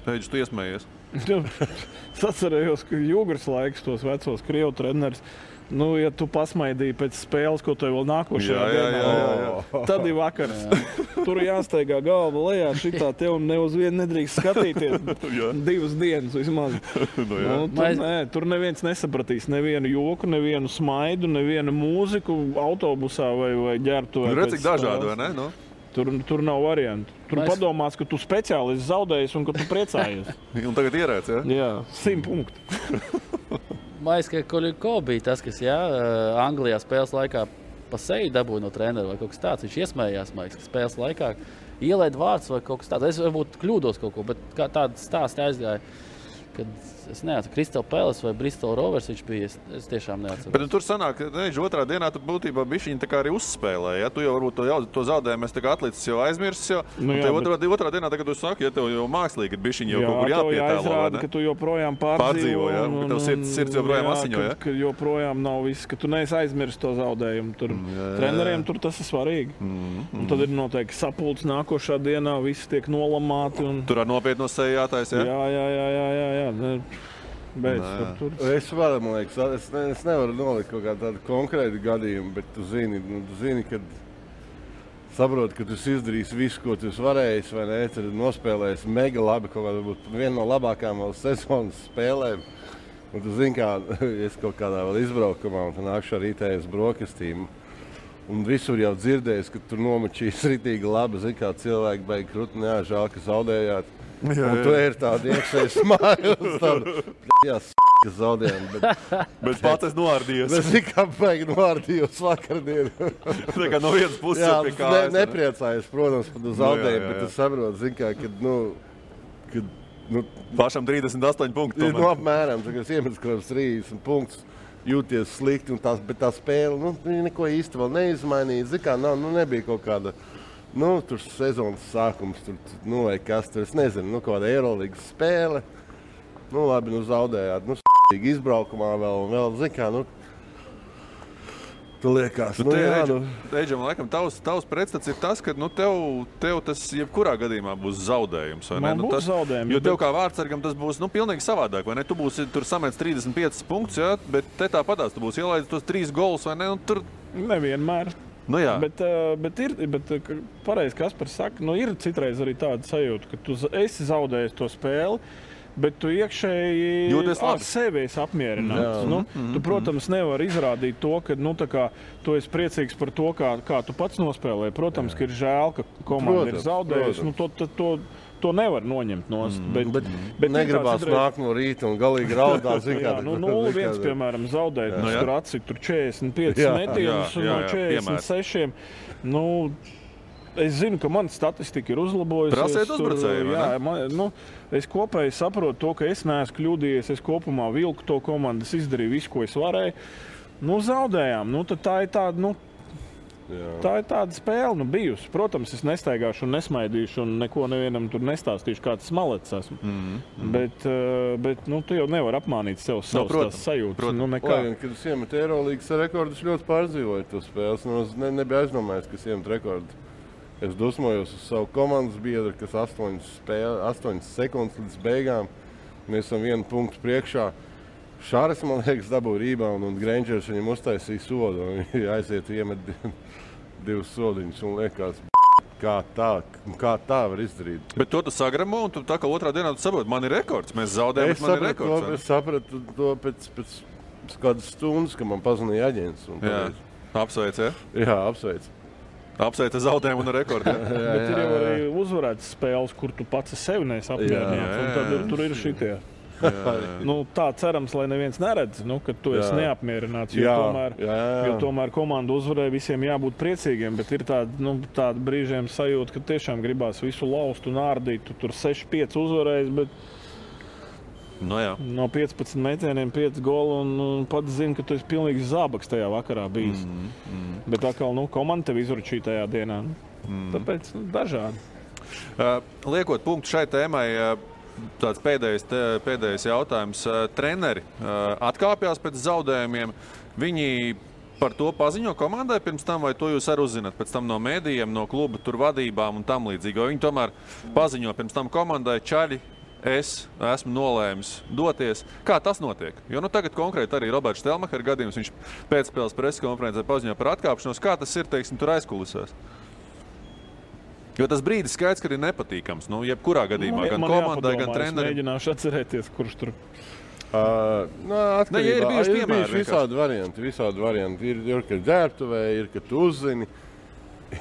Teģis, tu iesmējies. Es atcerējos, ka Jūgras laiks tos vecos Krievu treneris. Ja tu pasmaidīji pēc spēles, ko tev vēl nākošajā dienā, tad ir vakars. Tur jāsteigā galva lejā, šitā tev ne uz vienu nedrīkst skatīties 2 dienas vismaz. Tur neviens nesapratīs nevienu joku, nevienu smaidu, nevienu mūziku autobusā vai ģērbtuvē. Redz, cik dažādi, vai ne? Tur nav variantu. Tur padomās, ka tu speciāli esi zaudējis un ka tu priecājies. Un tagad ierēc, ja? Jā, 100 punktu. Maiska Koļiko bija tas, kas Anglijā spēles laikā pa seju dabūja no trenera vai kaut kas tāds. Viņš iesmējās, Maiska, spēles laikā ielaid vārds vai kaut kas tāds. Es varbūt kļūdos kaut ko, bet kā tāda stāsta aizgāja, kad es neatceru, Crystal Palace vai Bristol Rovers viņš bija, es tiešām neatceru. Bet tur sanāk, ka otrā dienā tu būtībā bišķiņi tā kā arī uzspēlēji, ja? Tu jau varbūt to zaudējumu tā kā atlicis jau aizmirsis jau. Otrā dienā, tagad tu saki, ja tev jau mākslīgi ir bišķiņi jau kaut kur jāpietēlo, vai ne? Ka tu joprojām pārdzīvo, ja? Ka tev sirds joprojām asiņo, ja? Ka joprojām nav viss, ka tu neesi aizmirsis to zaudējumu. Treneriem tur tas ir svarīgi. Un tad ir noteikti sapulcs nākošā dienā, visi tiek nolamāti. Tur ar nopietno seju jātais, ja? Jā. Es varu, man liekas, es nevaru nolikt kaut kādu tādu konkrētu gadījumu, bet tu zini, kad saproti, ka tu izdarīsi visu, ko tu varēji, vai ne, tad nospēlēsi mega labi, kaut kādā būt viena no labākām vēl sezonas spēlēm. Un tu zini, kā es kaut kādā vēl izbraukumā un nākšu ar rītējas brokastīm. Un visur jau dzirdējis, ka tur nomačīs ritīgi labi, zini, kā cilvēki beig krut, žēl, ka zaudējāt. Un tu ir tāda iekšēja smājums, tāda ka zaudējām. Bet pats es noārdījos. Es tikai beig noārdījos vakardien. Tā kā no vienas puses pie kājas. Nepriecājos, protams, par zaudējumu, bet es saprotu, zini, kā, kad pašam 38 punkti. Apmēram, kad es iemetu kaut kāds 30 punktus, jūties slikti, bet tā spēle, neko īsti vēl neizmainīja. Zini, kā, nebija kaut kāda. Tur sezonas sākums, vai kas tur, es nezinu, kāda Eirolīgas spēle. Labi, zaudējāt, izbraukumā vēl, zini kā, tu liekas. Eidžam, laikam, tavs pretstats ir tas, ka tev tas jebkurā gadījumā būs zaudējums, vai ne? Būs zaudējums. Jo tev kā vārdsargam tas būs, pilnīgi savādāk, vai ne? Tu būsi tur samets 35 punktus, ja? Bet te tāpatās tu būsi ielaidis tos 3 golus, vai ne? Un tur... Nevienmēr. Bet pareizi, Kaspars saka, ir citreiz arī tāda sajūta, ka tu esi zaudējis to spēli, bet tu iekšēji ar sevi esi apmierināts. Tu, protams, nevari izrādīt to, ka tu esi priecīgs par to, kā tu pats nospēlēji. Protams, ka ir žēl, ka komanda ir zaudējusi. To nevar noņemt nost. Bet negribās nākt no rīta un galīgi raudāt. 0-1, piemēram, zaudēt. Tur atcīt 45 metienus no 46. Es zinu, ka mana statistika ir uzlabojusies. Prasiet uzbrucēju, es kopēji saprotu to, ka es neesmu kļūdījies. Es kopumā vilku to komandu, es izdarīju visu, ko es varēju. Zaudējām. Tad tā ir tāda, tā ir tāda spēle bijusi. Protams, es nestaigāšu un nesmaidīšu un neko nevienam tur nestāstīšu, kā tas malets esmu. Bet tu jau nevar apmānīt sev savas sajūtas. Kad es iemetu Eirolīgas rekordus, ļoti pārdzīvoju to spēles. Nebija aizdomājies, ka es iemetu rekordu. Es dusmojos uz savu komandas biedru, kas 8 sekundes līdz beigām. Mēs esam 1 punktu priekšā. Šāris, man liekas, dabūja rebound un Grangers viņam uztaisīja sodu. Viņi aiziet iemet 2 sodiņus un liekas, kā tā var izdarīt. Bet to tu sagramo un tu tā kā otrā dienā tu saproti, man ir rekords, mēs zaudējam, bet man ir rekords. Es sapratu to pēc kādas stundas, ka man pazvanīja aģents. Apsveic, ja? Jā, apsveic. Apsveic zaudējumu un rekordu. Bet ir jau arī uzvarētas spēles, kur tu pats sevi neesi apmierināts. Un tad tur ir šitie. Tā cerams, lai neviens neredz, ka tu esi neapmierināts. Jo tomēr komanda uzvarēja, visiem jābūt priecīgiem, bet ir tāda brīžiem sajūta, ka tiešām gribās visu laust un ārdīt. Tu tur 6-5 uzvarējis, bet no 15 metieniem 5 goli un pats zini, ka tu esi pilnīgi zābaks tajā vakarā bijis. Bet atkal, komanda tev izručīja tajā dienā. Tāpēc dažādi. Liekot punktu šai tēmai, tāds pēdējais jautājums. Treneri atkāpjās pēc zaudējumiem. Viņi par to paziņo komandai pirms tam, vai to jūs arī uzzināt pēc tam no mēdījiem, no kluba tur vadībām un tam līdzīgi? Vai viņi tomēr paziņo pirms tam komandai, čaļi, es esmu nolēmis doties. Kā tas notiek? Jo tagad konkrēti arī Roberts Štelmacher gadījums, viņš pēcspēles preskonferencē paziņo par atkāpšanos. Kā tas ir, teiksim, tur aizkulisēs? Jo tas brīdis skaidrs, ka ir nepatīkams. Jebkurā gadījumā, gan komandai, gan trenerim. Es mēģināšu atcerēties, kurš tur. Atkarībā, ir bijuši visādi varianti. Ir, kad ģērbtuvē, ir, kad tu uzzini.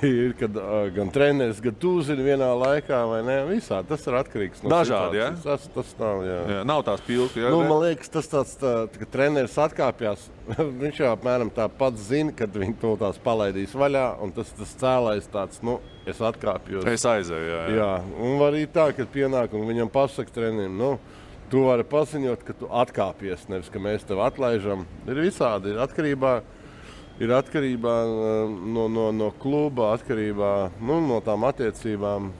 Ir, kad gan treneris, gan tu uzzini vienā laikā, vai ne? Visādi. Tas ir atkarīgs no dažādi, situācijas. Tas nav, jā. Nav tās pilki, jā? Man liekas, tas tāds, ka treneris atkāpjās. Viņš jau apmēram tā pats zina, kad viņi to tās palaidīs vaļā, un tas cēlājs tāds, es atkāpjos. Es aizēju, jā. Un var arī tā, kad pienāk un viņam pasaka trenerim, tu vari paziņot, ka tu atkāpies, nevis, ka mēs tev atlaižam. Ir visādi, ir atkarībā no kluba, atkarībā no tām attiecībām.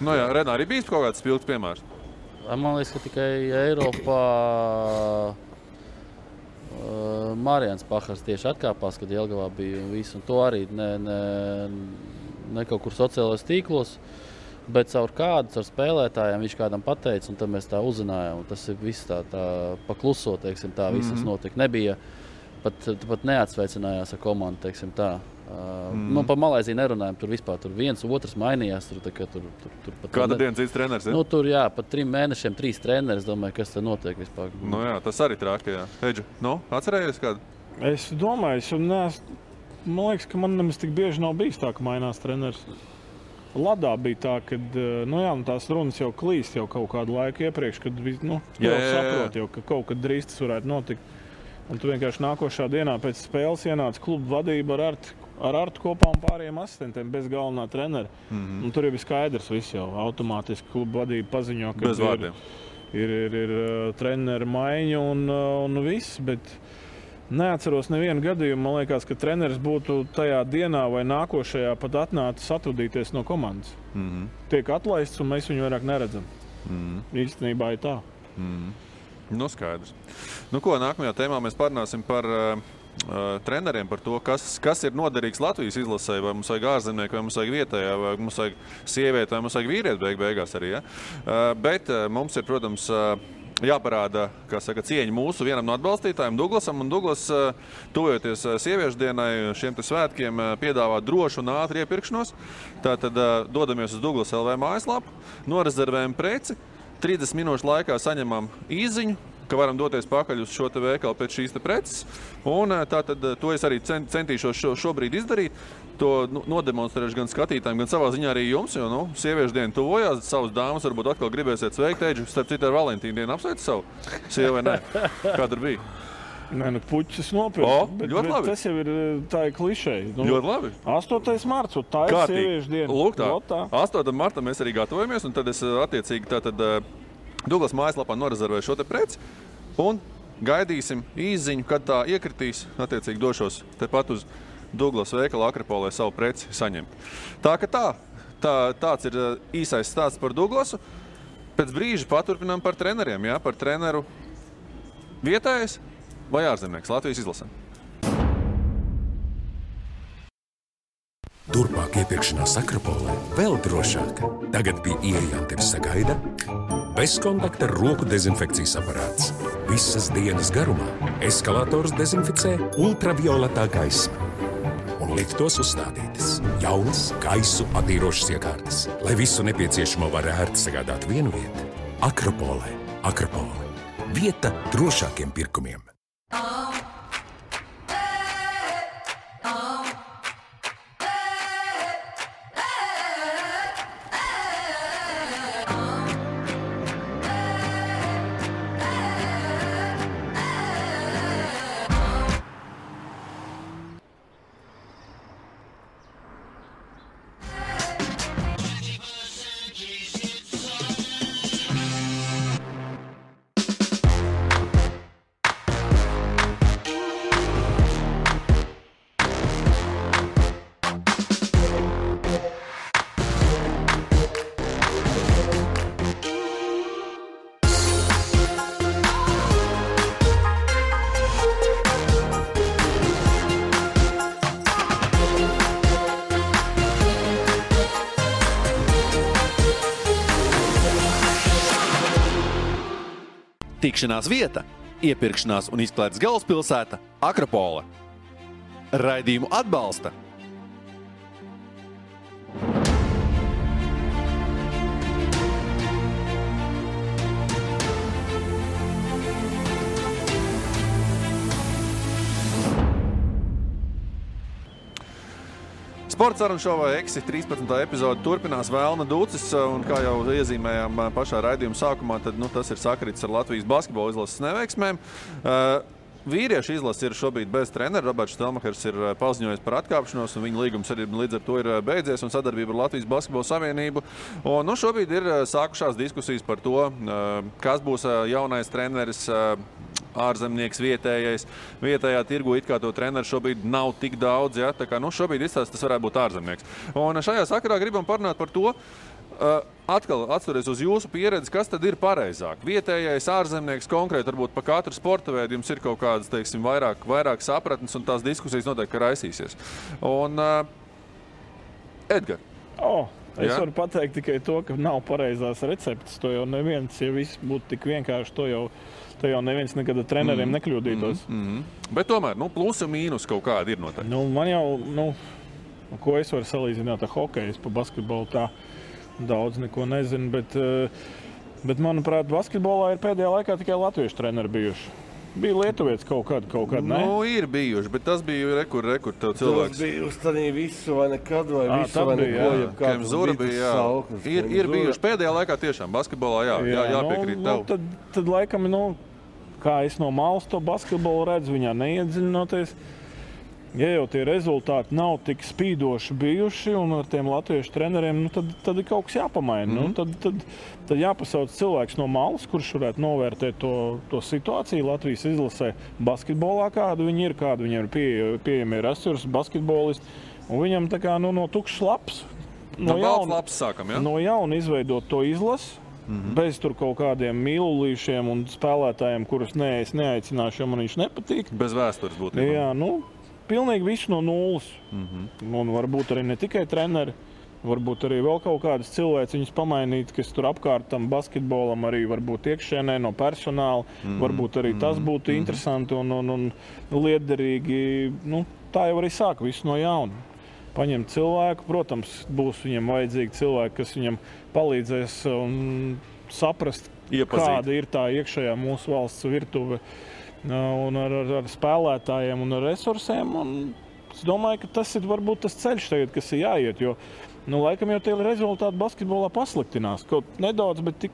Renā, arī bijis kaut kāds spilgts piemērs? Man liekas, ka tikai Eiropā Marijans Pahars tieši atkāpās, kad Jelgavā bija un viss. Un to arī ne kaut kur sociālajos tīklos, bet caur spēlētājiem viņš kādam pateica, un tad mēs tā uzzinājām. Un tas ir viss tā pakluso, teiksim, tā visas notika. Nebija pat neatsveicinājās ar komandu, teiksim tā. Par Malaiziju nerunājam, tur vispār viens, otrs mainījās. Kāda diena cits treneris? Tur pat 3 mēnešiem 3 treneri, es domāju, kas te notiek vispār. Tas arī trāki, jā. Eģi, atcerējies kādu? Es domāju, man liekas, ka man nemaz tik bieži nav bijis tā, ka mainās treneris. Ladā bija tā, ka tās runas jau klīst jau kaut kādu laiku iepriekš, kad saprot jau, ka kaut kad drīz tas varētu notikt. Un tu vienkārši nākošā dienā pēc spēles ienāca kluba vadība ar Artu kopā un pārējiem asistentiem bez galvenā trenera. Un tur jau bija skaidrs viss jau. Automātiski kluba vadība paziņo, ka ir trenera maiņa un viss. Bet neatceros nevienu gadījumu. Man liekas, ka treneris būtu tajā dienā vai nākošajā pat atnācis atvadīties no komandas. Tiek atlaists un mēs viņu vairāk neredzam. Īstenībā ir tā. Skaidrs. Nākamajā tēmā mēs parunāsim par treneriem, par to, kas ir noderīgs Latvijas izlasē, vai mums vajag ārzemnieku, vai mums vajag vietējā, vai mums vajag sievieti, vai mums vajag vīrieti beigās arī. Ja? Bet mums ir, protams, jāparāda, cieņa mūsu vienam no atbalstītājiem, Douglasam. Un Douglas, tuvojoties sieviešu dienai, šiem svētkiem piedāvā drošu un ātru iepirkšanos. Tātad dodamies uz Douglas LV mājaslapu, norezervējam preci. 30 minūšu laikā saņemam īziņu, ka varam doties pakaļ uz šo te veikalu pēc šīs te preces. Un tātad to es arī centīšos šobrīd izdarīt. To nodemonstrēšu gan skatītājiem, gan savā ziņā arī jums, jo sieviešu diena tuvojās. Savas dāmas varbūt atkal gribēsiet sveikt. Eģi, starp citu ar Valentīnu dienu apsveic savu sievu vai nē? Kā tur bija? Nē, puķis nopirkt. Bet tas jau ir tā klišeja. Ļoti labi. 8. marts, tā ir sieviešu diena. Lūk tā. 8. martā mēs arī gatavojamies, un tad es attiecīgi Douglas mājaslapā norezervēju šo te preci, un gaidīsim īziņu, kad tā iekritīs. Attiecīgi došos tepat uz Douglas veikala Akropolē savu preci saņemt. Tāds ir īsais stāsts par Douglasu. Pēc brīža paturpinām par treneriem, jā, par treneru vietējais vai ārzemnieks Latvijas izlasē. Turpmāk iepirkšanās Akropolē vēl drošāk. Tagad pie ieejām tevi sagaida bezkontakta roku dezinfekcijas aparāts. Visas dienas garumā eskalators dezinficē ultravioletā gaisma. Un liftos uzstādītas jaunas gaisu attīrošas iekārtas, lai visu nepieciešamo var ērti sagādāt vienu vietu. Akropolē. Akropole. Vieta drošākiem pirkumiem. Tikšanās vieta, iepirkšanās un izklaides galvaspilsēta Akropole. Raidījumu atbalsta Sports sarunu šovā Eksi 13. epizode turpinās Vēlna Dūcis, un kā jau iezīmējām pašā raidījuma sākumā, tad tas ir sakrits ar Latvijas basketbola izlases neveiksmēm. Vīriešu izlase ir šobrīd bez trenera. Roberts Štelmakers ir paziņojis par atkāpšanos, un viņa līgums arī līdz ar to ir beidzies, un sadarbība ar Latvijas basketbola savienību. Un šobrīd ir sākušās diskusijas par to, kas būs jaunais treneris, ārzemnieks vietējais. Vietējā tirgu it kā to treneru šobrīd nav tik daudz, ja? Tā kā šobrīd izstāsts tas varētu būt ārzemnieks. Un šajā sakarā gribam parunāt par to, atkal atsturies uz jūsu pieredzi, kas tad ir pareizāk? Vietējais ārzemnieks konkrēti, varbūt pa katru sporta veidu jums ir kaut kādas, teiksim, vairāk sapratnes, un tās diskusijas noteikti raisīsies. Un, Edgar. Es varu pateikt tikai to, ka nav pareizās receptes. To jau neviens, ja viss būtu tik vienkārši, to jau neviens nekad ar treneriem nekļūdītos. Bet tomēr, plusi un mīnus kaut kādi ir noteikti. Man jau, ko es varu salīdzināt ar hokeju, es pa basketbolu tā daudz neko nezinu, bet manuprāt, basketbolā ir pēdējā laikā tikai latviešu treneri bijuši. Bija lietuvietis kaut kādu, ne? Ir bijuši, bet tas bija rekur tev cilvēks. Tas bija uz tādī visu vai nekad, vai visu vai neko, Kem Zura bija, jā. Ir bijuši pēdējā laikā tiešām basketbolā, jāpiekrīt tev. Tad laikam, kā es no malas to basketbolu redzu, viņā neiedziļinoties. Ja jau tie rezultāti nav tik spīdoši bijuši un ar tiem latviešu treneriem, tad ir kaut kas jāpamaina. Tad jāpasauc cilvēks no malas, kurš varētu novērtēt to situāciju Latvijas izlasē basketbolā, kādu viņi ir, kādu viņiem ir pieejami resursi, basketbolisti. Un viņam tā kā no tukšs laps. No balts laps sākam, ja? No jauna izveidot to izlasi. Bez tur kaut kādiem mīlulīšiem un spēlētājiem, kurus es neaicināšu, jo man viņš nepatīk. Bez vēstures būtībā. Jā, pilnīgi visu no nulles. Un varbūt arī ne tikai treneri, varbūt arī vēl kaut kādas cilvēciņas pamainīt, kas tur apkārt tam basketbolam arī varbūt iekšēnē no personāla. Varbūt arī tas būtu interesanti un liederīgi. Tā jau arī sāk visu no jauna. Paņemt cilvēku, protams, būs viņam vajadzīgi cilvēki, kas viņam palīdzēs saprast, kāda ir tā iekšējā mūsu valsts virtuve. Un ar spēlētājiem un ar resursiem. Un es domāju, ka tas ir varbūt tas ceļš tagad, kas ir jāiet, jo laikam jau tie rezultāti basketbolā pasliktinās. Kaut nedaudz, bet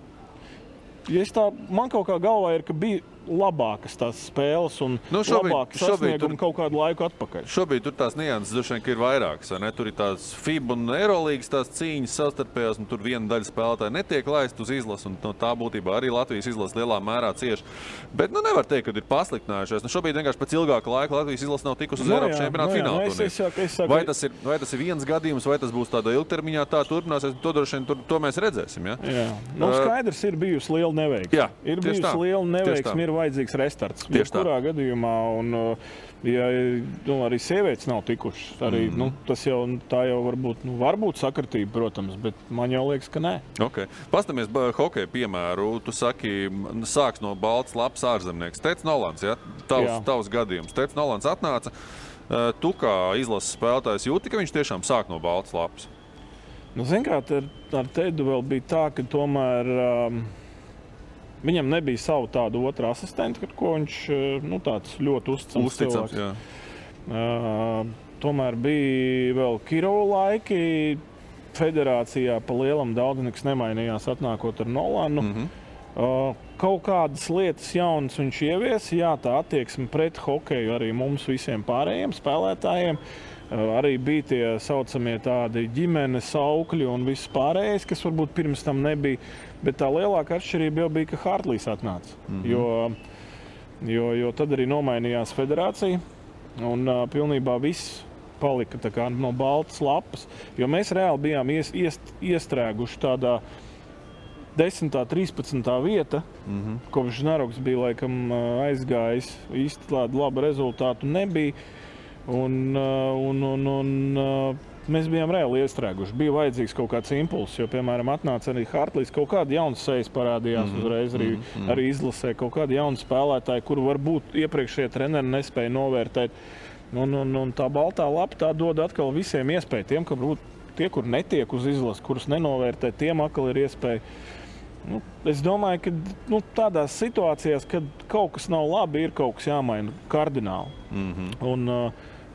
man kaut kā galvā ir, ka bija labākas tās spēles un labākas sasniegumi kaut kādu laiku atpakaļ. Šobrīd tur tās nianses droši vien ir vairākas. Tur ir tās FIBA un Eurolīgas tās cīņas savstarpējās, un tur viena daļa spēlētāji netiek laist uz izlasi, un tā būtībā arī Latvijas izlase lielā mērā cieši. Bet nevar teikt, ka ir pasliktinājušies. Šobrīd vienkārši pēc ilgāka laika Latvijas izlase nav tikusi uz Eiropas čempionāta fināla. Vai tas ir viens gadījums, vai tas būs tādā ilgtermiņā, tā turpināsies, to droši vien to mēs redzēsim. Ja? Skaidrs, ir bijusi liela neveiksme. Ir bijusi liela neveiksme, ir vajadzīgs restarts. Kurā gadījumā, un arī sievietes nav tikušas. Arī, tas jau varbūt sakritība, protams, bet man jau liekas, ka nē. Okay. Pastamies hokeja piemēru. Tu saki, sāks no balts lapas ārzemnieks. Teic Nolans, ja? Tavs gadījums. Teic Nolans atnāca. Tu kā izlases spēlētājs jūti, ka viņš tiešām sāk no balts lapas? Zin kā, ar Teidu vēl bija tā, ka tomēr viņam nebija savu tādu otru asistentu, ko viņš tāds ļoti uzticams cilvēks. Tomēr bija vēl Kirova laiki. Federācijā pa lielam daudz nekas nemainījās atnākot ar Nolanu. Kaut kādas lietas jaunas viņš ieviesa. Jā, tā attieksme pret hokeju arī mums visiem pārējiem spēlētājiem. Arī bija tie saucamie tādi ģimenes aukļi un viss pārējais, kas varbūt pirms tam nebija. Bet tā lielākā atšķirība jau bija, ka Hartlīs atnāca. Jo tad arī nomainījās federācija un pilnībā viss palika tā kā no baltas lapas. Jo mēs reāli bijām iestrēguši tādā 10. 13. vieta, kopš Naroks bija laikam aizgājis. Īsti tādu labu rezultātu nebija. Un Mēs bijām reāli iestrēguši. Bija vajadzīgs kaut kāds impulss, jo, piemēram, atnāca arī Hartlīs, kaut kāda jauna sejas parādījās uzreiz arī izlasē, kaut kāda jauna spēlētāja, kuru varbūt iepriekšējie treneri nespēja novērtēt. Un tā baltā lapa tā dod atkal visiem iespēju. Tiem, ka varbūt tie, kur netiek uz izlases, kurus nenovērtē, tiem atkal ir iespēja. Es domāju, ka tādās situācijās, kad kaut kas nav labi, ir kaut kas jāmaina kardināli.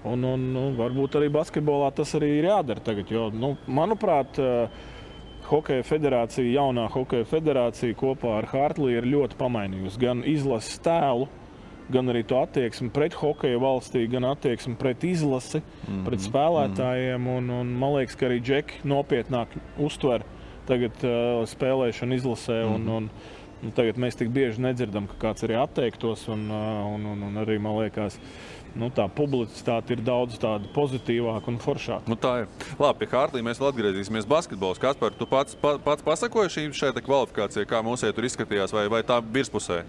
Un varbūt arī basketbolā tas arī ir jādara tagad, jo, manuprāt, Hokeja federācija, jaunā Hokeja federācija kopā ar Hartlī ir ļoti pamainījusi gan izlases tēlu, gan arī to attieksmi pret hokeja valstī, gan attieksmi pret izlasi, pret spēlētājiem. Un man liekas, ka arī džeki nopietnāk uztver tagad spēlēšanu izlasē. Un tagad mēs tik bieži nedzirdam, ka kāds arī atteiktos. Un arī, man liekas, tā publicitāte ir daudz tāda pozitīvāka un foršāka. Tā ir. Labi, pie Hartlī mēs vēl atgriezīsimies basketbols. Kaspar, tu pats pasakoji šai kvalifikācijai, kā mums tur izskatījās, vai tā virspusē?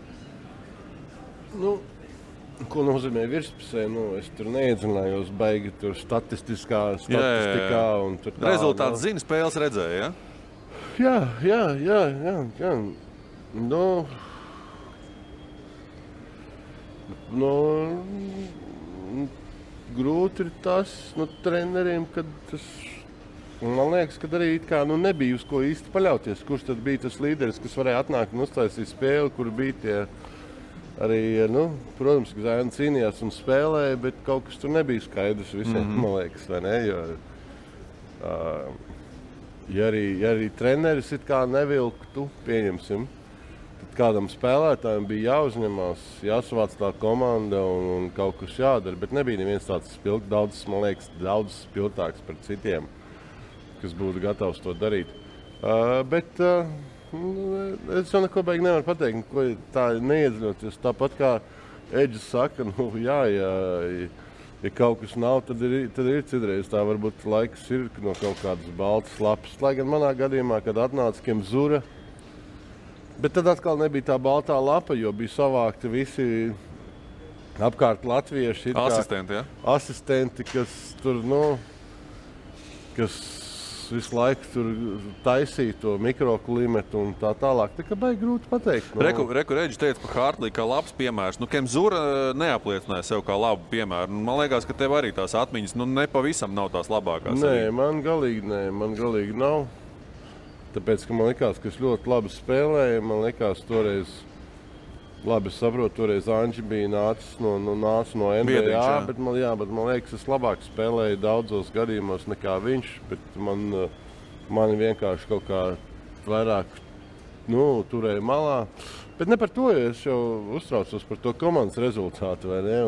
Ko nozīmē virspusē? Es tur neiedziļinājos baigi tur statistikā. Un tur tā, rezultāts zina, spēles redzēja, ja? Jā. Grūti ir tas treneriem, kad tas, man liekas, ka arī nebija uz ko īsti paļauties. Kurš tad bija tas līderis, kas varēja atnākt un uztaisīt spēli, kur bija tie arī, protams, ka Zēna cīnījās un spēlēja, bet kaut kas tur nebija skaidrs visiem, man liekas, vai ne? Ja arī treneris it kā nevilktu, pieņemsim, tad kādam spēlētājiem bija jāuzņemās, jāsavāc tā komanda un kaut kas jādara, bet nebija neviens tāds daudz spilgtāks par citiem, kas būtu gatavs to darīt. Bet es jau neko baigi nevaru pateikt, ko tā neiedziļoties. Tāpat kā Eģis saka, ja kaut kas nav, tad ir citreiz tā varbūt laiks ir no kaut kādas baltas lapas. Lai gan manā gadījumā, kad atnāca Kemzura, bet tad atkal nebija tā baltā lapa, jo bija savākti visi apkārt latvieši. Asistenti, ja? Asistenti, kas tur, kas visu laiku tur taisīja to mikroklimatu un tā tālāk. Tā kā baigi grūti pateikt. Reku Reģis teica par Hartlī kā labs piemērs. Kemzura neapliecināja sev kā labu piemēru. Man liekas, ka tev arī tās atmiņas nepavisam nav tās labākās. Nē, man galīgi nav. Tāpēc, ka man likās, ka es ļoti labi spēlēju. Man likās toreiz, labi saprotu, toreiz Anģi bija nācis no NBA, Biedriņš, bet man liekas, es labāk spēlēju daudzos gadījumos nekā viņš, bet mani vienkārši kaut kā vairāk turēja malā. Bet ne par to, ja es jau uztraucos par to komandas rezultātu, vai ne?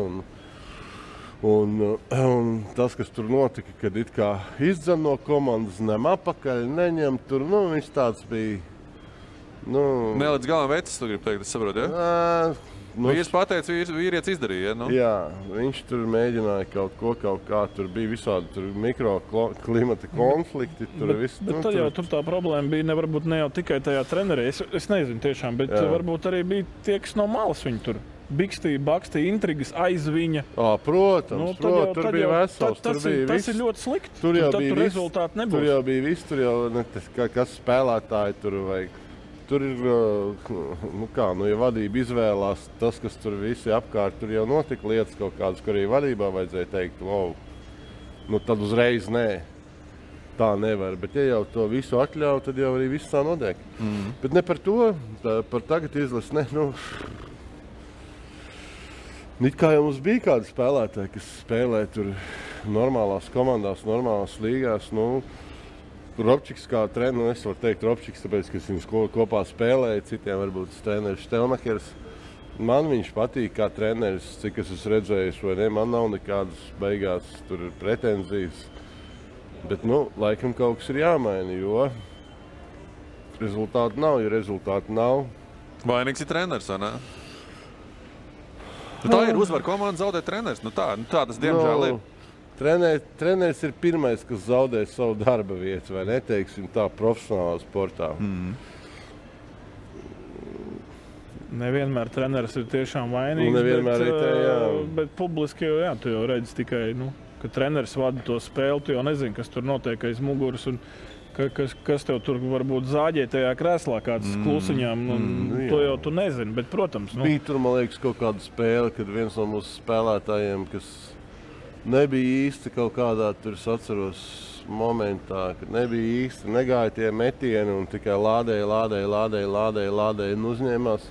Un tas, kas tur notika, kad it kā izdzen no komandas, nem apakaļ, neņem tur, viņš tāds bija. Ne līdz galam vecis, tu gribi teikt, es saprotu, ja? Vīrs pateica, vīrietis izdarīja, ja? Jā, viņš tur mēģināja kaut kā, tur bija visādi mikroklimata konflikti. Bet tad jau tur tā problēma bija varbūt ne jau tikai tajā trenerī, es nezinu tiešām, bet varbūt arī bija tie, kas no malas viņi tur bikstīja, bakstīja, intrigas aiz viņa. Protams, tur bija vesels. Tas ir ļoti slikti. Tur jau bija rezultāti nebūs. Tur jau bija viss, tur jau kas spēlētāji tur vajag. Tur ir, ja vadība izvēlās tas, kas tur visi apkārt, tur jau notika lietas kaut kādas, kur arī vadībā vajadzēja teikt, tad uzreiz nē, tā nevar. Bet ja jau to visu atļauj, tad jau arī viss tā notiek. Bet ne par to, par tagad izlasi, it kā jau mums bija kādi spēlētāji, kas spēlē tur normālās komandās, normālās līgās, Robčiks kā treneris, es varu teikt Robčiks, tāpēc, ka viņš kopā spēlēja, citiem varbūt treneris Štelmakers. Man viņš patīk kā treneris, cik es esmu redzējis, vai ne, man nav nekādas beigās tur pretenzijas. Bet, laikam kaut kas ir jāmaina, jo rezultāti nav, ja rezultāti nav. Vainīgs ir treneris, vai ne? Tā ir uzvar komanda, zaudē treneris. Tā tas diemžēl ir. Treneris ir pirmais, kas zaudē savu darba vietu, vai neteiksim tā, profesionālā sportā. Nevienmēr treneris ir tiešām vainīgs, bet publiski jau, tu jau redzi tikai, Kad treneris vada to spēli, tu jau nezini, kas tur notiek aiz muguras un kas tev tur varbūt zāģē tajā krēslā, kāds klusiņām. To jau tu nezini, bet, protams. Bija tur, man liekas, kaut kāda spēle, kad viens no mūsu spēlētājiem, kas nebija īsti kaut kādā, tur es atceros momentā, kad nebija īsti, negāja tie metieni un tikai lādēja un uzņēmās.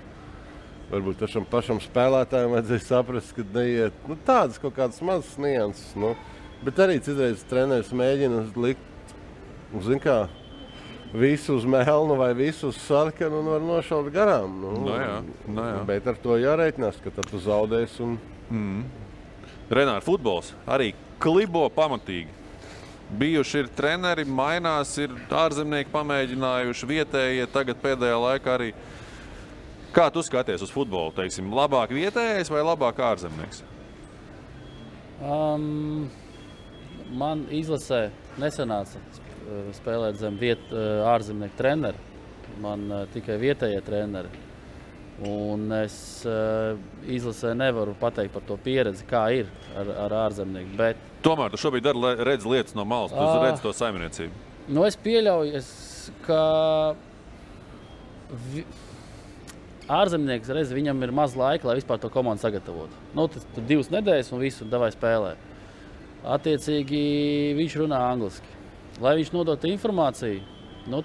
Varbūt pašam spēlētājiem vajadzēja saprast, ka neiet tādas kaut kādas mazas nianses. Bet arī citreiz treneris mēģina likt, zin kā, visu uz melnu vai visu uz sarkanu un var nošaut garām. Jā. Bet ar to jārēķinās, ka tad tu zaudēsi. Renāri, futbols arī klibo pamatīgi. Bijuši ir treneri, mainās, ir ārzemnieki pamēģinājuši, vietējie tagad pēdējā laikā arī. Kā tu skaties uz futbolu, teiksim, labāk vietējais vai labāk ārzemnieks? Man izlasē nesanāca spēlēt zem ārzemnieku treneri. Man tikai vietējie treneri. Un es izlasē nevaru pateikt par to pieredzi, kā ir ar ārzemnieku. Bet... Tomēr tu šobrīd redz lietas no malas, tu redz to saimniecību. Es pieļauju, ka ārzemnieks reiz viņam ir maz laika, lai vispār to komandu sagatavotu. Tas 2 nedēļas un visu davai spēlē. Attiecīgi viņš runā angliski. Lai viņš nodotu informāciju,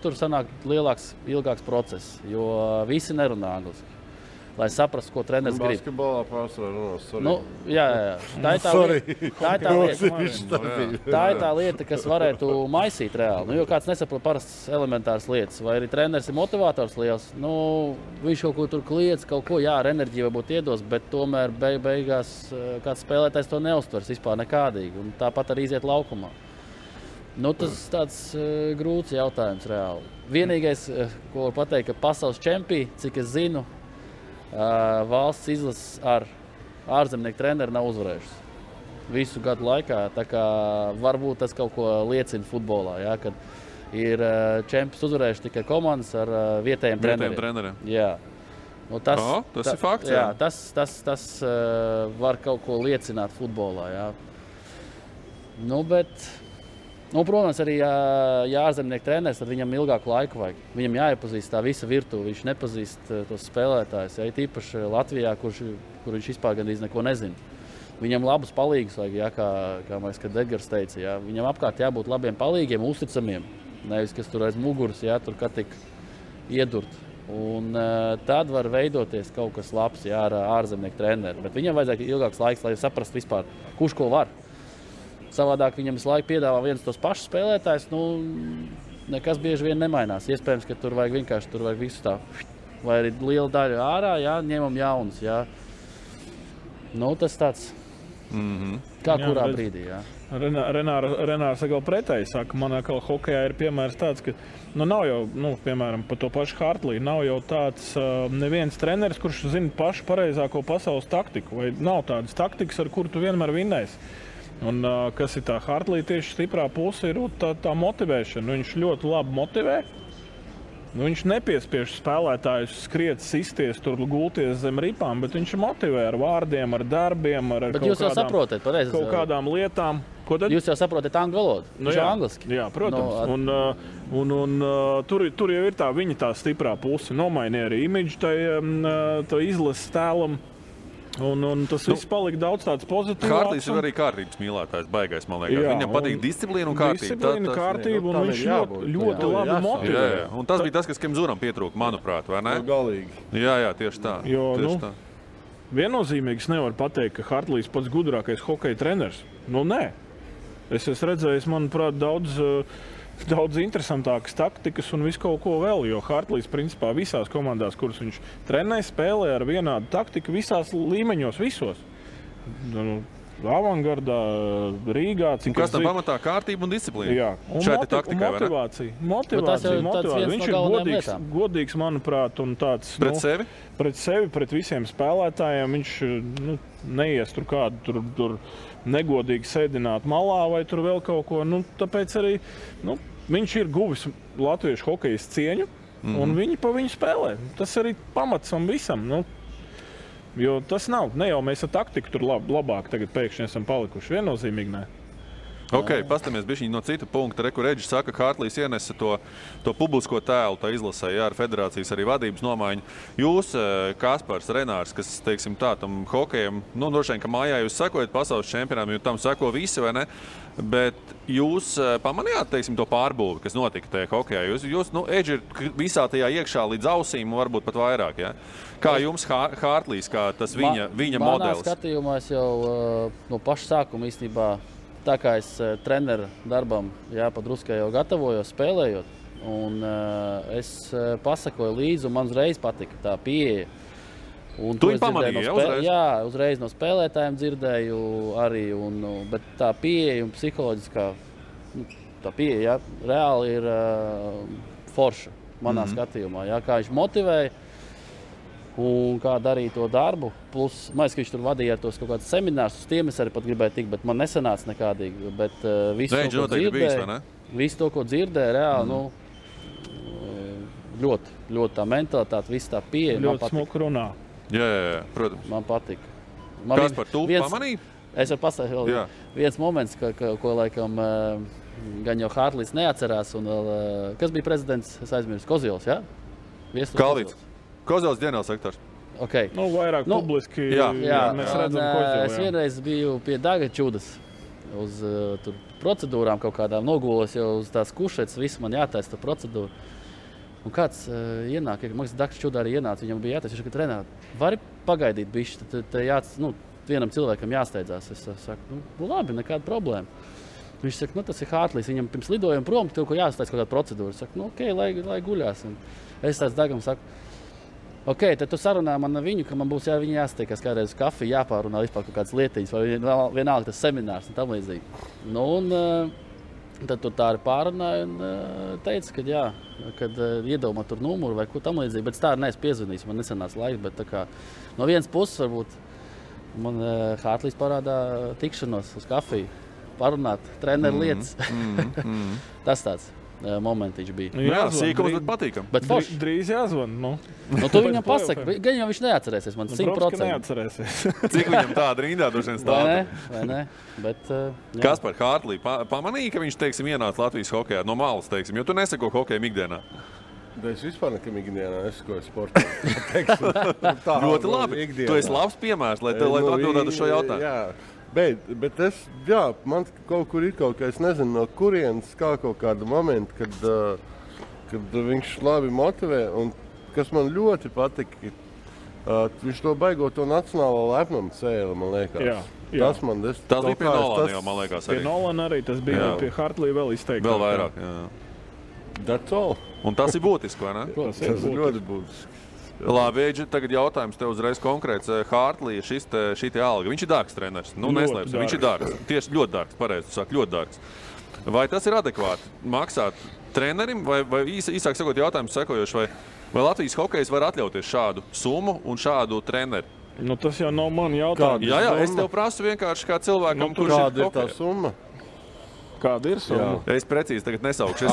tur sanāk ilgāks process, jo visi nerunā angliski. Lai saprastu, ko treneris grib. Basketbolā pārsvarā runās, Jā. Tā ir tā lieta, kas varētu maisīt reāli. Jo kāds nesaprot parastas elementāras lietas, vai arī treneris ir motivators liels, viņš kaut ko tur kliedz, kaut ko, ar enerģiju varbūt iedos, bet tomēr beigās kāds spēlētājs to neuztvers vispār nekādīgi, un tāpat arī iziet laukumā. Tas tāds grūts jautājums reāli. Vienīgais, ko var pateikt, ka pasaules čempioni, cik es zinu, valsts izlases ar ārzemnieku treneri nav uzvarējušas visu gadu laikā. Tā kā varbūt tas kaut ko liecina futbolā, kad ir čempions uzvarējuši tikai komandas ar vietējiem treneriem. Jā. Tas ir fakts. Jā, tas var kaut ko liecināt futbolā. Jā. Protams, arī ārzemnieku treneris, tad viņam ilgāku laiku vajag. Viņam jāiepazīst tā visa virtuve, viņš nepazīst tos spēlētājus. Tīpaši Latvijā, kur viņš vispār gandrīz neko nezina. Viņam labus palīgus vajag, kā Edgars teica. Viņam apkārt jābūt labiem palīgiem, uzticamiem. Nevis, kas tur aiz muguras, tur kā tik iedurt. Un tad var veidoties kaut kas labs ar ārzemnieku treneri. Bet viņam vajadzēja ilgāks laiks, lai saprastu vispār, kurš ko var. Savādāk viņam visu laiku piedāvā viens tos pašus spēlētājus, nekas bieži vien nemainās. Iespējams, ka tur vajag visu tā, vai arī liela daļa ārā, ņemam jaunus. Tas tāds, kā kurā brīdī. Renārs atkal pretēji saka, man atkal hokejā ir piemērs tāds, ka nav jau, piemēram, par to pašu Hartliju, nav jau tāds neviens treneris, kurš zina pašu pareizāko pasaules taktiku, vai nav tādas taktikas, ar kuru tu vienmēr vinnēsi. Un, kas ir tā Hartlija tieši stiprā puse, ir tā motivēšana. Viņš ļoti labi motivē. Viņš nepiespiež spēlētājus skriet, sisties, tur gulties zem ripām, bet viņš motivē ar vārdiem, ar darbiem, ar kaut kādām lietām. Jūs jau saprotat angļu valodu? Viņš jau angliski. Jā, protams. Tur jau ir viņa tā stiprā puse. Nomainīja arī imidžu tā izlases tēlam. Un tas viss palika daudz tāds pozitīvs. Hartlijs ir arī kārtības mīlētājs, baigais, man liekas. Viņam patīk disciplīna un kārtība. Disciplīna, kārtība, un viņš ļoti labi motivē. Un tas bija tas, kas Kemzuram pietrūka, manuprāt, vai ne? Galīgi. Jā, tieši tā. Tā. Viennozīmīgi nevar pateikt, ka Hartlijs pats gudrākais hokeja treneris. Nē. Es esmu redzējis, manuprāt, daudz interesantākas taktikas un visu kaut ko vēl, jo Hartlijs principā visās komandās, kuras viņš trenē, spēlē ar vienādu taktiku visās līmeņos, visos. Avangardā, Rīgā. Kas tam pamatā kārtība un disciplīna? Jā. Šeit ir taktikai, motivācija. Viņš ir godīgs, manuprāt, un tāds... Pret sevi? Pret sevi, pret visiem spēlētājiem. Viņš neies tur kādu tur negodīgi sēdināt malā vai tur vēl kaut ko. Tāpēc arī viņš ir guvis latviešu hokejas cieņu, un viņi pa viņu spēlē. Tas arī pamats un visam. Jo tas nav. Ne jau mēs ar taktiku tur labāk tagad pēkšņi esam palikuši. Viennozīmīgi nē. Ok, pastamies bišķiņ no cita punkta. Reku Reģis saka, ka Hartlīs ienesa to publisko tēlu, tā izlasē, jā, ar federācijas arī vadības nomaiņu. Jūs, Kaspars, Renārs, kas, teiksim tā, tam hokejam, nu, droši vien, ka mājā jūs sekojat pasaules čempionām, jo tam seko visi, vai ne? Bet jūs pamanījāt, teiksim, to pārbūvi, kas notika tajā hokejā? Jūs nu, Edži ir visā tajā iekšā līdz ausīm, varbūt pat vairāk, jā? Kā jums Hartlīs, kā tas viņa modelis? Manā skatījumā es jau no paša sākuma īstenībā, tā kā es treneru darbam padruskai jau gatavojos, spēlējot, un es pasakoju līdzi, un man uzreiz patika tā pieeja. Un tu viņu pamanīji, uzreiz? Jā, uzreiz no spēlētājiem dzirdēju arī, bet tā pieeja un psiholoģiskā, tā pieeja, reāli ir forša manā skatījumā, kā viņš motivēja un kā darīja to darbu. Plus, man liekas, ka viņš tur vadīja tos kaut kādus seminārus, uz tiem es arī pat gribēju tikt, bet man nesanāca nekādīgi. Bet visu to, ko dzirdēju, reāli, ļoti tā mentalitāte, viss tā pieeja. Ļoti smuka runā. Jā, protams. Man patika. Kaspar, tu pamanīji? Es varu pastāstīt viens moments, ko laikam gan jau Hartlīs neatcerās. Un, kas bija prezidents? Es aizmirsu. Kozils, jā? Kalvīts. Kozils ģenerālsektors. Okay. Nu, vairāk publiski mēs redzam Kozilu. Es vienreiz biju pie Daga Čudas uz procedūrām kaut kādām nogūlos, jau uz tās kušetes, viss man jātaisa tā procedūra. Un kāds ienāk, Maks Daks Čudā arī ienāca, viņam bija jātaisa, viņš saka, Renāt, vari pagaidīt bišķi, tad vienam cilvēkam jāsteidzās. Es saku, labi, nekāda problēma. Viņš saka, tas ir Hartlīs, viņam pirms lidojuma prom, tev ko jāstājas kaut kāda procedūra. Es saku, ok, lai guļās. Un es tāds Dagam saku, ok, tad tu sarunā man viņu, ka man būs viņu jāsteikas kādreiz uz kafiju, jāpārunā vispār kaut kādas lietiņas, vai vienalga tas seminārs un tam līdzīgi. Tad tu tā arī pārunāja un teica, ka kad iedomā tur numuru vai ko tam līdzīgi, bet tā arī neesmu piezvanījis, man nesanāca laiks, bet tā kā no vienas puses varbūt man Hartlīs parādā tikšanos uz kafiju, parunāt treneru lietas. Tas tāds momentiņš bija. Jā, sīkums, bet patīkam. Bet drīz jāzvan, tu viņam pasaki, gan jau viņš neatcerēsies, man 100%. Neatcerēsies. Cik viņam tāda rindā droši vien stāta? Vai ne? Bet, Kaspar, Hartlī, pamanīja, ka viņš, teiksim, ienāca Latvijas hokejā no malas, teiksim, jo tu neseko hokejam ikdienā? Es vispār nekam ikdienā nesakoju sportā. Ļoti labi. Tu esi labs piemērs, lai tu atbildētu uz šo jautājumu. Jā. Bet man kaut kur ir kaut kā, es nezinu, no kurienes kā kaut kāda momenta, kad viņš labi motivē, un kas man ļoti patika, viņš to baigo to nacionālo lepnumu cēli, man liekas. Jā. Tas bija pie Nolana jau, man liekas, arī. Pie Nolana arī, tas bija pie Hartlī vēl izteikti. Vēl vairāk, jā. That's all. Un tas ir būtiski, vai ne? Tas ir ļoti būtiski. Labi, Eģi, tagad jautājums tev uzreiz konkrēts. Hartlī, šī alga, viņš ir dārgs treneris. Neslēpsim, viņš ir dārgs. Tieši ļoti dārgs, pareizi tu saki, ļoti dārgs. Vai tas ir adekvāti maksāt trenerim, vai īsāk sakot jautājums sekojoši, vai Latvijas hokejs var atļauties šādu summu un šādu treneri? Tas jau nav man jautājums. Jā, es tev prasu vienkārši kā cilvēkam, kurš kāda ir tā summa? Kāda ir summa? Es precīzi tagad nesaukšu.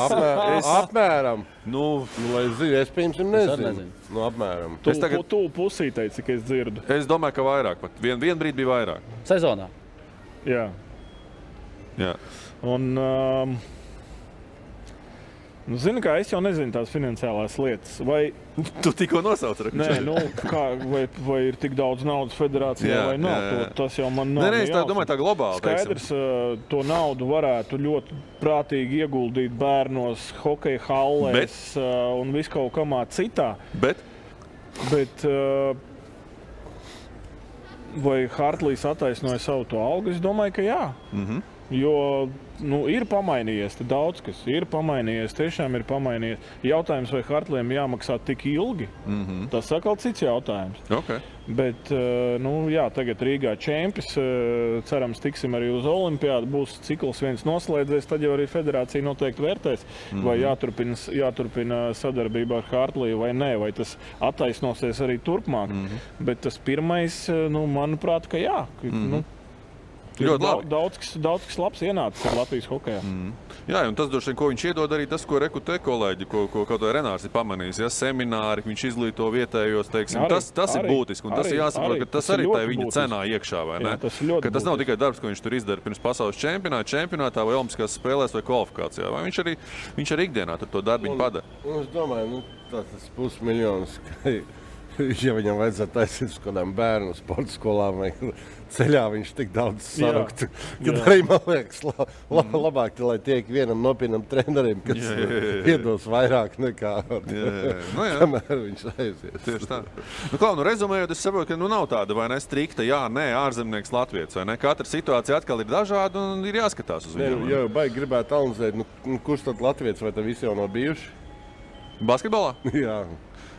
Apmēram. Lai zinu, es piemēram nezinu. Apmēram. Tu pusītei, cik es dzirdu. Es domāju, ka vairāk pat. Vien brīdi bija vairāk. Sezonā? Jā. Un, zini, kā es jau nezinu tās finansiālās lietas. Vai tu tikko nosauci? Nē, vai ir tik daudz naudas federācijā vai nav. Tas jau man nav. Nē, es domāju, tā globāli. Skaidrs, to naudu varētu ļoti prātīgi ieguldīt bērnos, hokeja hallēs un viskaut kamā citā. Bet vai Hartlīs attaisnoja savu to algu? Es domāju, ka jā. Jo ir pamainījies, daudz kas ir pamainījies, tiešām ir pamainījies. Jautājums, vai Hartliem jāmaksā tik ilgi, tas atkal cits jautājums. Okay. Bet, tagad Rīgā čempions, cerams, tiksim arī uz olimpiādu, būs cikls viens noslēdzies, tad jau arī federācija noteikti vērtēs, vai jāturpina sadarbībā ar Hartliju vai nē, vai tas attaisnosies arī turpmāk. Bet tas pirmais, manuprāt, ka jā. Ļoti labi. Daudz kas labs ienācis ar Latvijas hokejā. Jā, un tas droši vien, ko viņš iedod arī tas, ko rekrutē kolēģi, ko kaut vai Renārs ir pamanījis. Ja, semināri, viņš izglīto vietējos, teiksim, tas ir būtiski. Un tas ir jāsaprot, ka tas arī tā viņa cenā iekšā, vai ne? Jā, tas nav tikai darbs, ko viņš tur izdara pirms pasaules čempionātā vai olimpiskās spēlēs vai kvalifikācijā. Vai viņš arī ikdienā tur to darbiņu padara. Es domāju, tas $500,000. Ja viņam vajadzētu taisīt uz kādām bērnu sporta skolām vai ceļā, viņš tik daudz saruktu. Kad arī, man liekas, labāk, lai tiek vienam nopietnam trenerim, kas iedos vairāk nekā kamēr viņš aizies. Tieši tā. Rezumējot, es saprotu, ka nav tāda vai ne strikta, ārzemnieks Latvijas, vai ne? Katra situācija atkal ir dažāda un ir jāskatās uz viņu. Jā, baigi gribētu analizēt, kurš tad Latvijas vai tad visi jau nav bijuši? Basketbolā? Jā.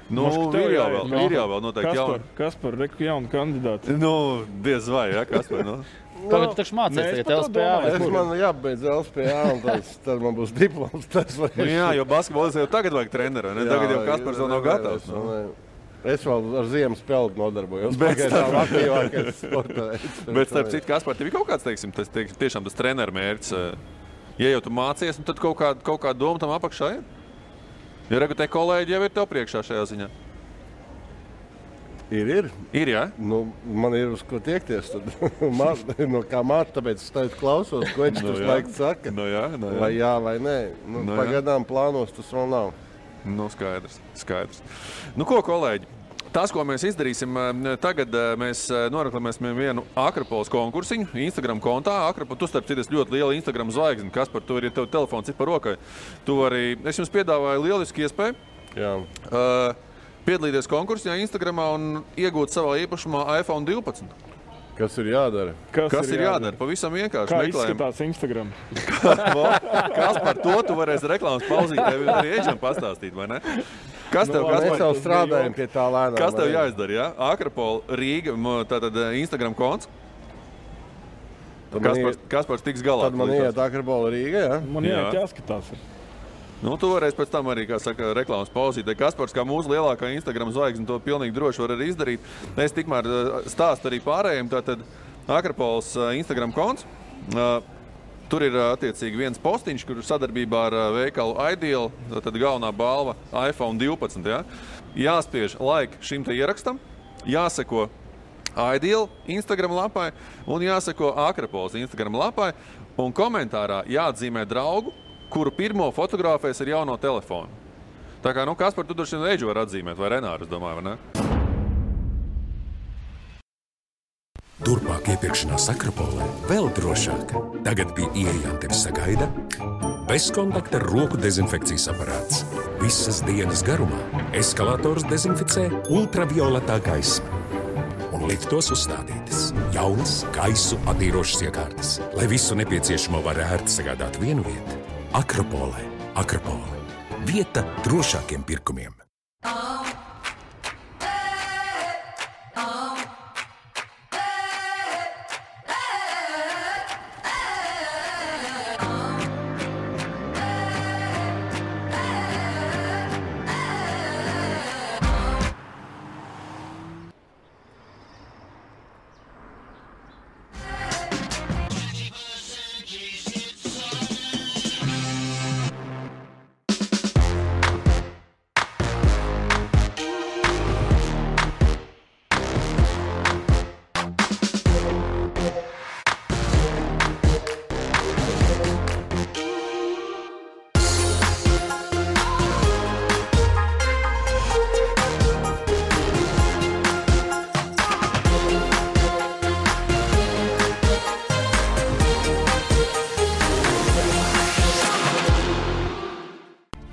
Ir jau vēl noteikti jauni. Kaspar, jauni kandidāti. Diez vai, Kaspar, Tagad tu taču mācies tagad LSPA. Man jābeidz LSPA un tad man būs diploms. Jā, jo basketbolis jau tagad vajag treneru, ne? Tagad jau Kaspars vēl nav gatavs. Es vēl ar ziemas spēli nodarbojos. Bet starp citu, Kaspar, tev ir kaut kāds, tiešām tas treneru mērķis. Ja jau tu mācies, tad kaut kā doma tam apakšā ir? Ja rekrutē kolēģi jau ir tev priekšā šajā ziņā? Ir, jā? Man ir uz ko tiekties. Kā māte, tāpēc es tagad klausos, ko viņš tur laiks saka. Jā. Vai jā, vai nē. Pagaidām plānos tas vēl nav. Skaidrs. Ko, kolēģi? Tas, ko mēs izdarīsim, tagad mēs noreklamēsim vienu Akropoles konkursiņu Instagram kontā. Tu starp citu ļoti liela Instagram zvaigzne. Kaspar, tu arī tev telefons ir par rokai. Es jums piedāvāju lielisku iespēju. Jā. Piedalīties konkursā Instagramā un iegūt savā īpašumā iPhone 12. Kas ir jādara? Kas ir jādara? Pavisam vienkārši. Kā izskatās Instagram? Kaspar, to varēs reklāmas pauzīt, arī Eģam pastāstīt, vai ne? Mēs jau strādājam pie tā lēnām. Kas tev jāizdara, jā? Akropola Rīga, tātad Instagram konts. Kaspars tiks galā. Tad man iet Akropola Rīga, jā? Man jāskatās. Tu varēsi pēc tam arī, kā saka, reklāmas pauzīt. Kaspars, kā mūsu lielākā Instagram zvaigzne, to pilnīgi droši var arī izdarīt. Es tikmēr stāstu arī pārējiem. Tātad Akropols Instagram konts. Tur ir attiecīgi viens postiņš, kur sadarbībā ar veikalu Ideal, tad galvenā balva iPhone 12. Ja? Jāspiež like šim te ierakstam, jāseko Ideal Instagram lapai un jāseko Akropols Instagram lapai. Un komentārā jāatzīmē draugu, kuru pirmo fotografēs ar jauno telefonu. Tā kā, Kaspar, tu droši vien Eģu var atzīmēt, vai Renāru, es domāju, vai ne? Turpmāk iepirkšanās Akropolē vēl drošāk. Tagad pie ieejām tevi sagaida bezkontakta roku dezinfekcijas aparāts. Visas dienas garumā eskalators dezinficē ultravioletā gaisma. Un liftos uzstādītas jaunas gaisu attīrošas iekārtas, lai visu nepieciešamo var ērti sagādāt vienu vietu. Akropolē. Vieta drošākiem pirkumiem.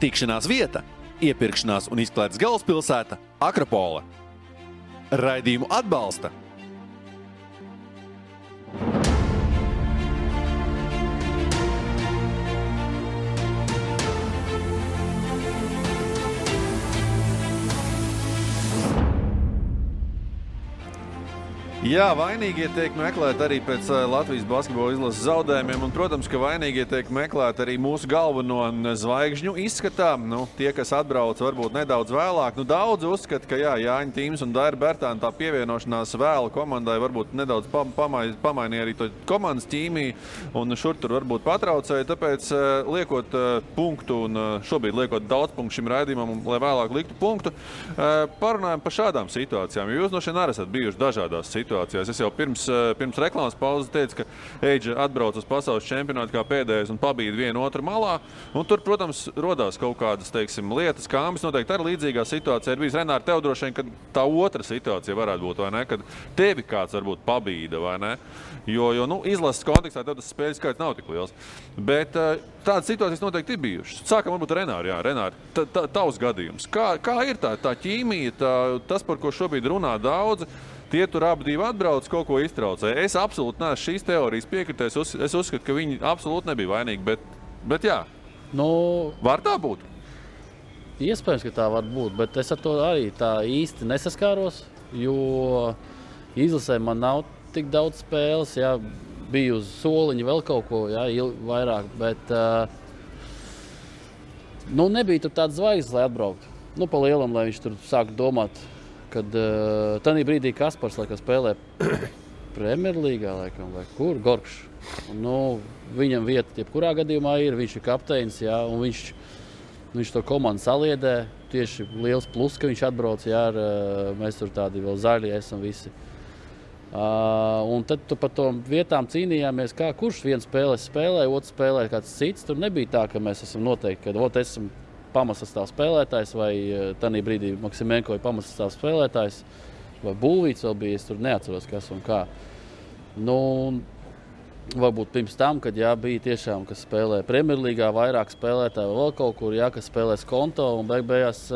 Tikšanās vieta, iepirkšanās un izklaides galvaspilsēta Akropola. Raidījumu atbalsta Jā, vainīgie tiek meklēti arī pēc Latvijas basketbola izlases zaudējumiem, un, protams, ka vainīgie tiek meklēti arī mūsu galveno zvaigžņu izskatā. Tie, kas atbrauc varbūt nedaudz vēlāk, daudz uzskata, ka Jāņa Tīms un Daira Bērtāna tā pievienošanās vēlu komandai varbūt nedaudz pamainīja arī to komandas ķīmiju, un šur tur varbūt patraucēja, tāpēc liekot punktu, un šobrīd liekot daudz punktu šim raidījumam, lai vēlāk liktu punktu, parunājam par šādām situācijām, jo jūs no šeit arī esat bijuši dažādās situācijās. Es jau pirms reklāmas pauzes teicu, ka Eidža atbrauc uz pasaules čempionātu kā pēdējais un pabīda vienu otru malā. Un tur, protams, rodās kaut kādas, lietas, kā Ambis noteikti arī līdzīgā situācijā ir bijis. Renāri, tev droši vien, ka tā otra situācija varētu būt, vai ne? Kad tevi kāds varbūt pabīda, vai ne? Jo izlases kontekstā tev tas spēļu skaits nav tik liels. Bet tādas situācijas noteikti ir bijušas. Sākam varbūt Renāri, Renāri, tavs gadījums. Kā ir tā ķīmija, tas, par ko šobrīd runā daudzi? Tie tur abi divi atbrauc, kaut ko iztraucēja. Es absolūti neesmu šīs teorijas piekritējis. Es uzskatu, ka viņi absolūti nebija vainīgi, bet jā. Var tā būt? Iespējams, ka tā var būt, bet es ar to arī tā īsti nesaskāros, jo izlasē man nav tik daudz spēles, biju uz soliņa vēl kaut ko, vairāk, bet nebija tur tāds zvaigznes, lai atbrauktu. Pa lielam, lai viņš tur sāktu domāt, kad tanī brīdī Kaspars spēlē Premjerlīgā, vai kur, Gorkšs. Viņam vieta jebkurā gadījumā ir, viņš ir kapteinis, un viņš to komandu saliedē. Tieši liels plus, ka viņš atbrauc, mēs tur tādi vēl zaļi esam visi. Un tad tu par tom vietām cīnījāmies, kurš viens spēlē, otrs spēlē kāds cits. Tur nebija tā, ka mēs esam noteikti, ka esam pamatsastāv spēlētājs, vai tanī brīdī Maksimenko ir pamatsastāv spēlētājs, vai Būvīts vēl bija, es tur neatceros, kas un kā. Varbūt pirms tam, kad bija tiešām, kas spēlē Premjerlīgā, vairāk spēlētāji vai vēl kaut kur, kas spēlē Skonto, un beigās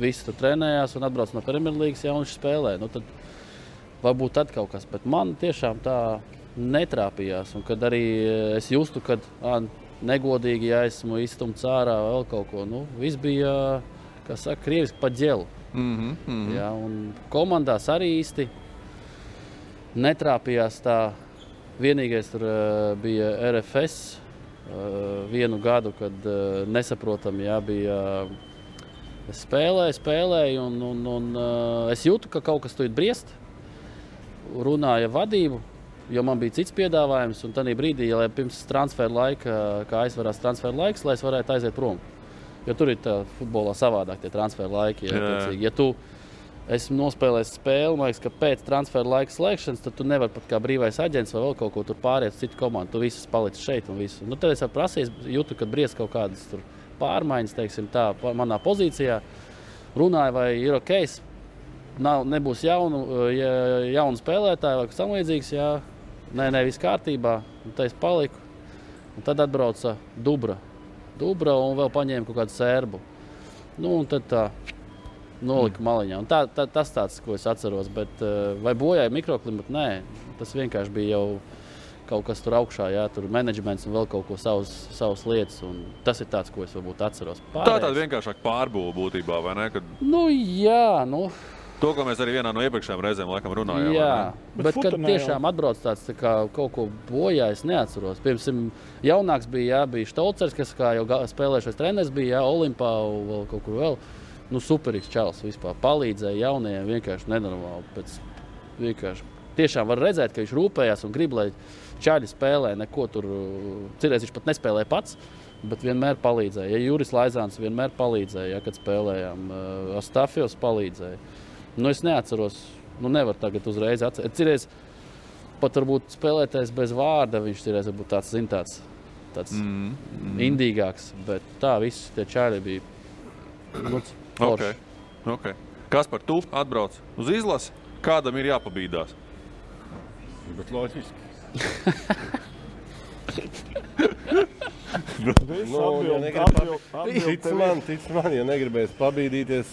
visi tur trenējās un atbrauc no Premjerlīgas, un viņš spēlē. Tad varbūt tad kaut kas, bet man tiešām tā netrāpījās, un kad arī es justu, kad negodīgi, esmu izstumts ārā vēl kaut ko. Viss bija, kā saka, krieviski pa ģelu. Un komandās arī īsti netrāpījās tā. Vienīgais tur bija RFS vienu gadu, kad nesaprotam, bija spēlēju, un es jūtu, ka kaut kas tur briest. Runāja vadību. Jo man bija cits piedāvājums, un tajā brīdī, lai pirms transfera laika, kā aizvarās transfera laiks, lai es varētu aiziet prom. Jo tur ir tā futbolā savādāk tie transfera laiki. Ja tu esi nospēlējis spēli, man liekas, ka pēc transfera laika slēgšanas, tad tu nevari pat kā brīvais aģents vai vēl kaut ko tur pāriet uz citu komandu. Tu viss palicis šeit un visu. Tad es jau prasīju, jūtu, kad briest kaut kādas tur pārmaiņas, teiksim tā, manā pozīcijā. Runāju, vai ir ok, nebūs jaunu spēlētāju vai kas tam līdzīgs, Nē, viss kārtībā, un tā es paliku. Un tad atbrauca Dubra un vēl paņēma kaut kādu sērbu. Un tad tā nolika maliņā. Un tas tāds, ko es atceros, bet vai bojāja mikroklimatu? Nē, tas vienkārši bija jau kaut kas tur augšā, tur menedžments un vēl kaut ko savas lietas. Un tas ir tāds, ko es varbūt atceros. Tā tāda vienkāršāk pārbūve būtībā, vai ne? Kad... To, ko mēs arī vienā no iepriekšējām reizēm laikam runājām. Jā, bet kad tiešām atbrauc tāds tā kā kaut ko bojā, es neatceros. Pirms jaunāks bija Štolcers, kas kā jau spēlējušais treneris bija, Olimpā vēl kaut kur vēl. Superīgs čalis vispār. Palīdzēja jaunajiem vienkārši nenormāli. Vienkārši tiešām var redzēt, ka viņš rūpējās un grib, lai čaļi spēlē neko tur. Cirēs viņš pat nespēlēja pats, bet vienmēr palīdzēja. Juris Laizāns vienmēr palīdzēja, kad spēlējām. Astafjos palīdzēja. Es neatceros, nevar tagad uzreiz atcerēt. Cirēs pat varbūt spēlētājs bez vārda, viņš cirēs varbūt tāds indīgāks, bet tā visi tie čāļi bija forši. Okay. Kaspar, tu atbrauc uz izlasi, kādam ir jāpabīdās? Bet loģiski. Tic man, ja negribēs pabīdīties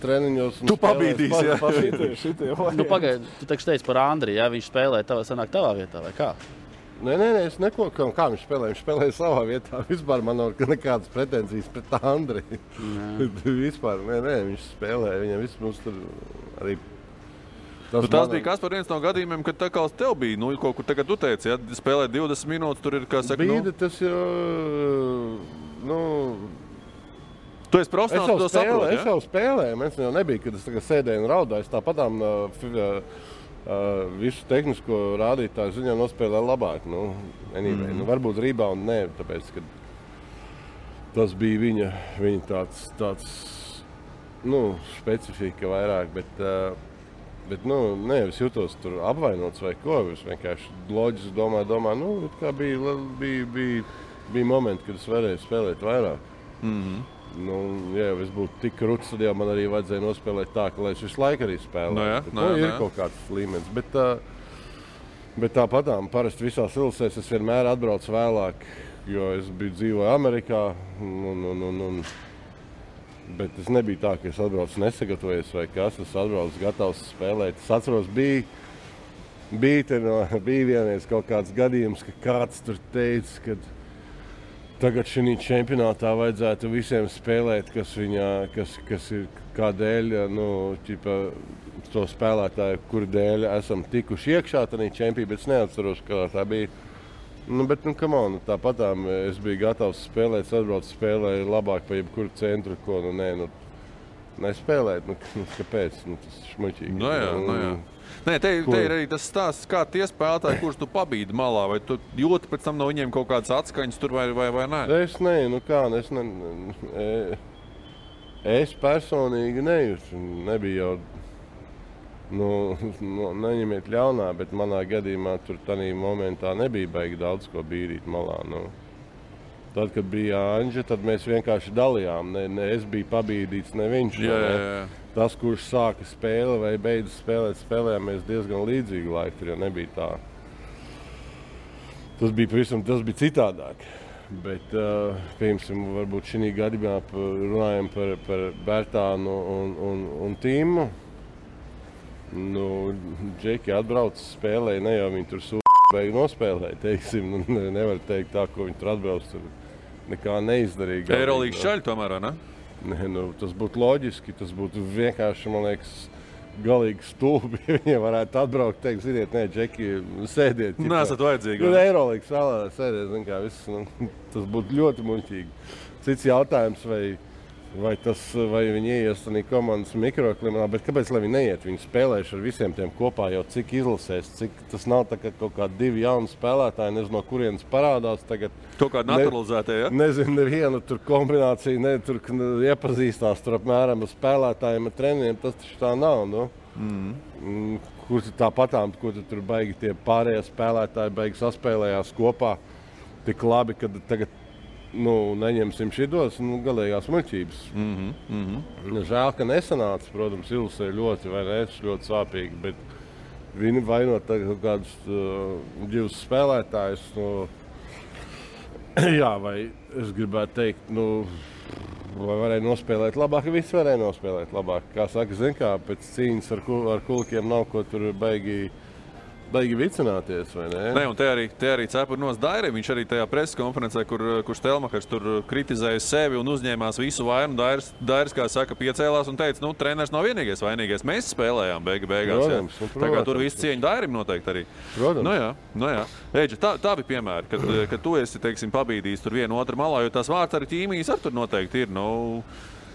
treniņos. Tu pabīdīsi, Pagaid, tu taču teici par Andri, viņš spēlē sanāk tavā vietā, vai kā? Nē, es neko, kā viņš spēlēja savā vietā. Vispār man nav nekādas pretenzijas pret Andri. Vispār, nē, viņš spēlēja, viņam viss mums tur arī Tas bija kas par viens no gadījumiem, kad tā kā uz tev bija, kaut kur tagad tu teici, ja spēlēt 20 minūtes, tur ir, kā saka, Bīda, tas jau, Tu esi profesionāls, to saproti, ja? Es jau spēlēju, man jau nebija, kad es tagad sēdēju un raudāju, tāpatām visu tehnisko rādītāju ziņā nospēlēju labāk, anyway. Varbūt rebound nē, tāpēc, ka tas bija viņa tāds specifika vairāk, bet es jutos tur apvainots vai ko, es vienkārši loģiski domāju, kā bija momenti, kad es varēju spēlēt vairāk. Ja es būtu tik krūts, tad jau man arī vajadzēja nospēlēt tā, ka lai es visu laiku arī spēlētu. Ir kaut kāds līmenis, bet tāpatām parasti visās ilusēs es vienmēr atbraucu vēlāk, jo es dzīvoju Amerikā, bet es nebija tā, ka es atbraucu nesagatavojies vai kas, es atbraucu gatavs spēlēt. Es atceros, bija vienreiz kaut kāds gadījums, ka kāds tur teica, ka tagad šī čempionātā vajadzētu visiem spēlēt, kas ir kādēļ, to spēlētāju, kuru dēļ esam tikuši iekšā tajā čempionātā, bet es neatceros, kā tā bija. Bet, come on, tāpatām es biju gatavs spēlēt, atbraucu spēlēju labāk pa jebkuru centru, ko, nespēlēt, kāpēc, tas ir šmuļķīgi. Jā. Nē, te ir arī tas stāsts, kā tie spēlētāji, kurus tu pabīdi malā, vai tu jūti pēc tam no viņiem kaut kādas atskaņas tur vai nē? Es personīgi nejūtu, nebija jau, neņemiet ļaunā, bet manā gadījumā tur tādā momentā nebija baigi daudz ko bīdīt malā. Tad, kad bija Anģa, tad mēs vienkārši dalījām. Ne es biju pabīdīts, ne viņš. Tas, kurš sāka spēli vai beidza spēlēt, spēlējāmies diezgan līdzīgu laiku, tur jau nebija tā. Tas bija citādāk. Bet, piemēram, varbūt šī gadījumā runājam par Bērtānu un Tīmu. Džeki atbrauc spēlēja, ne jau viņi tur beigi nospēlēja, teiksim. Nevar teikt tā, ko viņi tur atbrauc, tur nekā neizdarīga. Eirolīgas šaļi tomēr, ne? Tas būtu loģiski, tas būtu vienkārši, man liekas, galīgi stulbi, ja viņi varētu atbraukt, teikt, ziniet, nē, Džeki, sēdiet. Nesat vajadzīgi. Eirolīgas vēlē sēdiet, zin kā, tas būtu ļoti muļķīgi. Cits jautājums, vai viņi ieies tādā komandas mikroklimatā, bet kāpēc, lai viņi neiet? Viņi spēlējuši ar visiem tiem kopā jau cik izlasēs, cik tas nav tā kā kaut kādi divi jauni spēlētāji, nezinu, no kurienes parādās tagad. Kaut kādi naturalizētie, ja? Nezinu, neviena tur kombinācija, tur iepazīstās tur apmēram ar spēlētājiem, ar trenieriem, tas taču tā nav, Kur tāpatām, kur tur baigi tie pārējie spēlētāji baigi saspēlējās kopā tik labi, kad tagad neņemsim šitos, galīgās muļķības. Žēl, ka nesanāca, protams, ilusē ļoti sāpīgi, bet viņi vainot kaut kādus divus spēlētājus. Jā, vai es gribētu teikt, vai varēja nospēlēt labāk, visi varēja nospēlēt labāk. Kā saka, zin kā, pēc cīņas ar kulkiem nav ko tur baigi vicināties, vai ne? Nē, un te arī cepurnos Dairim. Viņš arī tajā preses konferencē, kur Stelmachers tur kritizēja sevi un uzņēmās visu vainu. Dairis, kā saka, piecēlās un teica, treneris nav vienīgais vainīgais. Mēs spēlējām beigās. Protams, tā kā tur visu cieņu Dairim noteikti arī. Protams. Jā. Eģe, tā bija piemēra, kad tu esi, teiksim, pabīdījis tur vienu otru malā, jo tās vārds arī ķīmijas ar tur noteikti ir.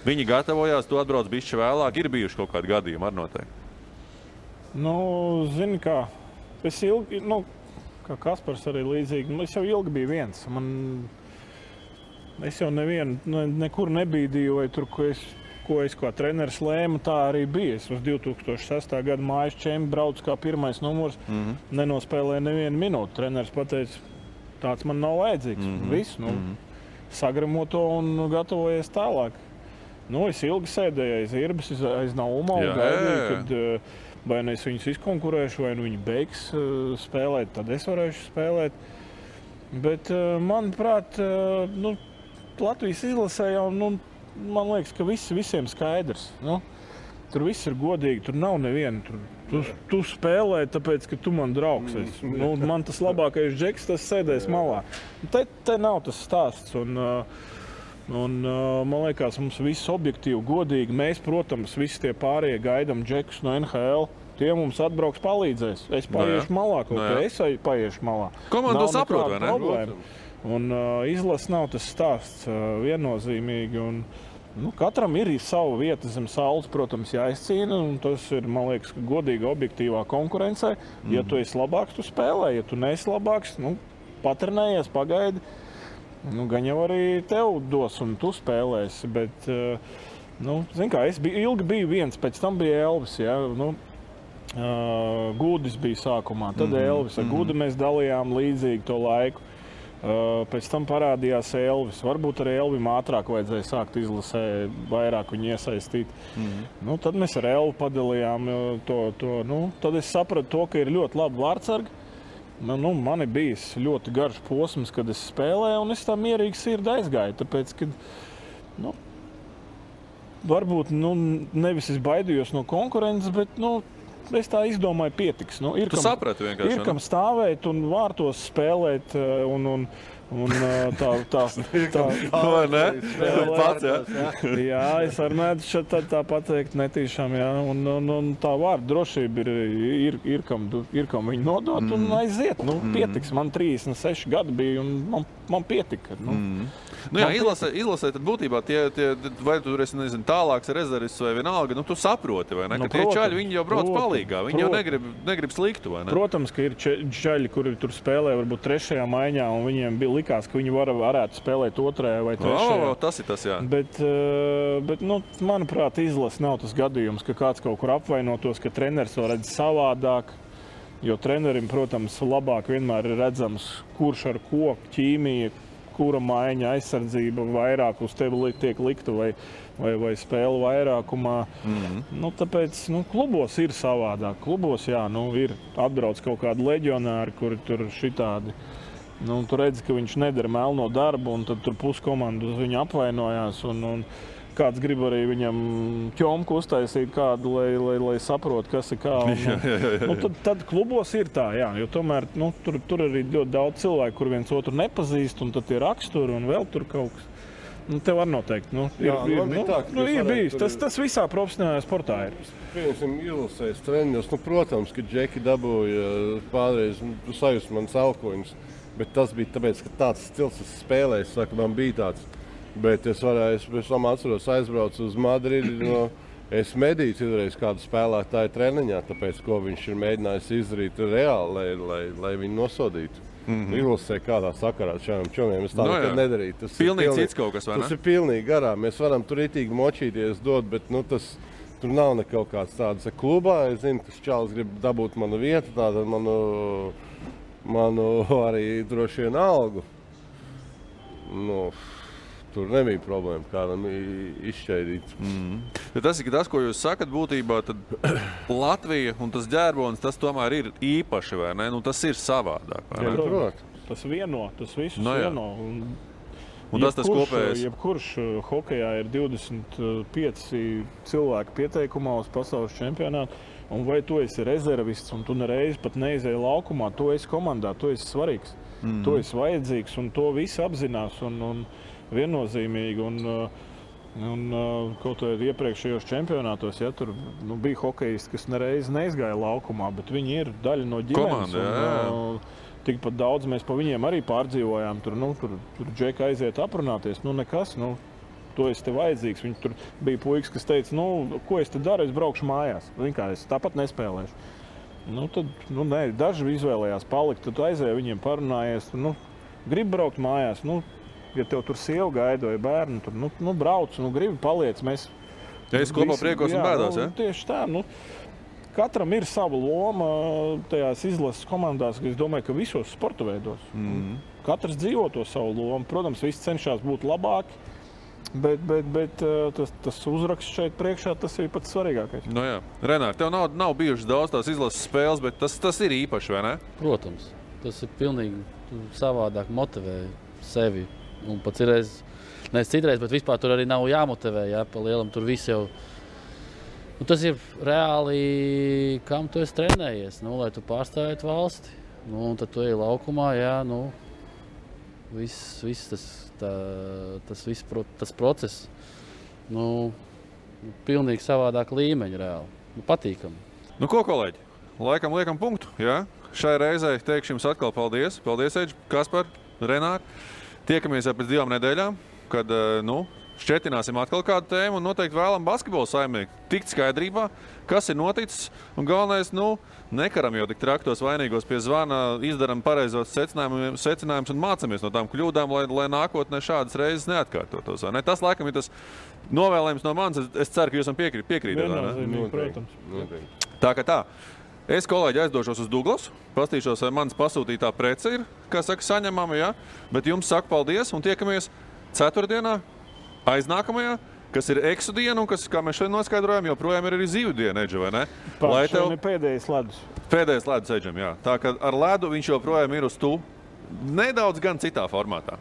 Viņi gatavojās, tu atbrauc bišķi vēlāk. Ir bijuši kaut kādi gadījumi ar noteikti. Zini kā. Es ilgi, kā Kaspars arī līdzīgi, es jau ilgi biju viens. Es jau nekur nebīdīju, vai tur, ko es kā treneris lēmu, tā arī bija. Es uz 2006. Gada mājas čempi braucu kā pirmais numurs, nenospēlēju nevienu minūti. Treneris pateica, tāds man nav vajadzīgs. Viss, sagramo to un gatavojies tālāk. Es ilgi sēdēju aiz Irbes, aiz Nauma un gaidīju, kad vai es viņus izkonkurēšu, vai viņi beigs spēlēt, tad es varēšu spēlēt. Bet, manuprāt, Latvijas izlasē jau, man liekas, ka visiem skaidrs. Tur viss ir godīgi, tur nav neviena. Tu spēlē, tāpēc, ka tu man draugs esi. Man tas labākais džeks, tas sēdēs malā. Te nav tas stāsts. Un man liekas, mums viss objektīvi, godīgi. Mēs, protams, visi tie pārējie gaidām džekus no NHL. Tie mums atbrauks palīdzēs. Es paiešu malā, es paiešu malā. Komanda to saprot, vai ne? Problēma. Un izlase nav tas stāsts viennozīmīgi. Un, katram ir sava vieta zem saules, protams, jāizcīna. Un tas ir, man liekas, godīga, objektīvā konkurencē. Ja tu esi labāks, tu spēlē. Ja tu neesi labāks, patrenējies, pagaidi. Gan jau arī tev dos un tu spēlēsi. Bet, zin kā, es ilgi biju viens, pēc tam bija Elvis. Ja? Gudis bija sākumā, tad Elvis. Ar Gudu mēs dalījām līdzīgi to laiku. Pēc tam parādījās Elvis. Varbūt arī Elvim ātrāk vajadzēja sākt izlasē, vairāk viņu iesaistīt. Tad mēs ar Elvu padalījām to. Tad es sapratu to, ka ir ļoti labi vārdsargi. Man ir bijis ļoti garš posms, kad es spēlēju, un es tā mierīgi sirdi aizgāju. Tāpēc, kad, varbūt nevis es baidījos no konkurences, bet es tā izdomāju, pietiks. Tu saprati vienkārši. Ir kam stāvēt un vārtos spēlēt un tā. Vai ne? Pats, jā, es arī mēdzu tā pateikt netīšām, jā. Un tā vārda drošība ir kam viņu nodot un aiziet. Pietiks. Man 36 gadi bija un man pietika. Izlasē tad būtībā vai tu esi, nezinu, tālāks rezervists vai vienalga, tu saproti, vai ne? Ka tie čaļi, viņi jau brauc palīgā, viņi jau negrib sliktu, vai ne? Protams, ka ir čaļi, kuri tur spēlē varbūt 3. maiņā, un viņiem likās, ka viņi varētu spēlēt 2. vai 3. Tas ir tas, jā. Bet manuprāt, izlase nav tas gadījums, ka kāds kaut kur apvainotos, ka treneris to redz savādāk. Jo trenerim, protams, labāk vienmēr ir redzams, kurš ar ko ķīmija, kura maiņa aizsardzība vairāk uz tevi tiek likta vai spēle vairākumā. Tāpēc klubos ir savādāk. Klubos, ir atbrauc kaut kādi leģionāri, kuri tur šitādi. Tu redzi, ka viņš nedara melno darbu, un tad tur puskomandu uz viņu apvainojās. Un kāds grib arī viņam ķomku uztaisīt kādu, lai saprot, kas ir kā. Tad klubos ir tā, jā, jo tomēr tur arī ļoti daudz cilvēku, kur viens otru nepazīst, un tad tie raksturi un vēl tur kaut kas. Tev var noteikt. Ir bijis. Tas visā profesionālajā sportā ir. Pieņemsim, ilusēs treniņos. Protams, ka Džeki dabūja pārreiz sajust manas alkoņus, bet tas bija tāpēc, ka tāds stils es spēlēju, man bija tāds. Bet es atceros, aizbraucu uz Madridi. Es medīju citreiz kādu spēlētāju treniņā, tāpēc, ko viņš ir mēģinājis izdarīt reāli, lai viņu nosodītu. Ilusē kādā sakarā šādiem čomiem. Es tā nekad nedarīju. Tas pilnīgi cits kaut kas, vai ne? Tas ir pilnīgi garām. Mēs varam tur itīgi močīties dot, bet tur nav ne kaut kāds tāds klubā. Es zinu, ka čāls grib dabūt manu vietu, tātad manu arī droši vien algu. Tur nebija problēma kādam izšķaidīt. Tas ir tas, ko jūs sakat būtībā, tad Latvija un tas ģērbonis, tas tomēr ir īpaši, vai ne? Tas ir savādāk, vai ne? Protams. Tas vieno, tas visus vieno. Un tas kopējais. Jebkurš hokejā ir 25 cilvēki pieteikumā uz pasaules čempionātu, un vai tu esi rezervists, un tu nereiz pat neizēji laukumā, tu esi komandā, tu esi svarīgs, tu esi vajadzīgs, un to visi apzinās, un viennozīmīgi. Un kaut kādā iepriekšējos čempionātos, tur bija hokejisti, kas nereiz neizgāja laukumā, bet viņi ir daļa no ģimenes. Komanda, tikpat daudz mēs pa viņiem arī pārdzīvojām. Tur Džeka aiziet aprunāties, nekas, to es te vajadzīgs. Viņi tur bija puikas, kas teica, ko es te daru, es braukšu mājās. Es tāpat nespēlēšu. Nē, daži izvēlējās palikt, tad aizēja viņiem parunājies, grib braukt mājās, ja tev tur sieva gaida vai bērni, tur brauc, gribi paliec. Es kopā priekos un bēdās, ja? Tieši tā. Katram ir sava loma tajās izlases komandās, es domāju, ka visos sporta veidos. Katrs dzīvo to savu lomu. Protams, visi cenšas būt labāki, bet tas uzraksts šeit priekšā, tas ir pats svarīgākais. Renār, tev nav bijušas daudz tās izlases spēles, bet tas ir īpaši, vai ne? Protams. Tas ir pilnīgi savādāk motivē sevi. Un pat citreiz, bet vispār tur arī nav jāmotivē, pa lielam tur viss jau. Tas ir reāli, kam tu esi trenējies, lai tu pārstāvētu valsti. Un tad tu ej laukumā, viss tas process, pilnīgi savādāk līmeņa reāli. Patīkami. Nu, ko, kolēģi? Laikam liekam punktu, jā? Šai reizei teikšu jums atkal paldies. Paldies, Eģi, Kaspar, Renāri. Tiekamies jau pēc 2 nedēļām, kad, šķetināsim atkal kādu tēmu un noteikti vēlam basketbolu saimnieku tikt skaidrībā, kas ir noticis. Un galvenais, nekaram jau tik traktos vainīgos pie zvana, izdaram pareizos secinājumus un mācamies no tām kļūdām, lai nākotnē šādas reizes neatkārtotos. Ne? Tas, laikam, ir tas novēlējums no manis. Es ceru, ka jūs man piekrītat. Viennozīmīgi, protams. Tā kā tā. Es, kolēģi, aizdošos uz Douglasu, pastīšos, vai manas pasūtītā prece ir, kā saka, saņemama, ja? Bet jums saku paldies un tiekamies ceturtdienā, aiznākamajā, kas ir eksu diena un kas, kā mēs šodien noskaidrojam, joprojām ir arī zīvu diena, Eģi, vai ne? Šodien ir pēdējais ledus. Pēdējais ledus, Eģim, jā. Tā kā ar ledu viņš joprojām ir uz tu, nedaudz gan citā formātā.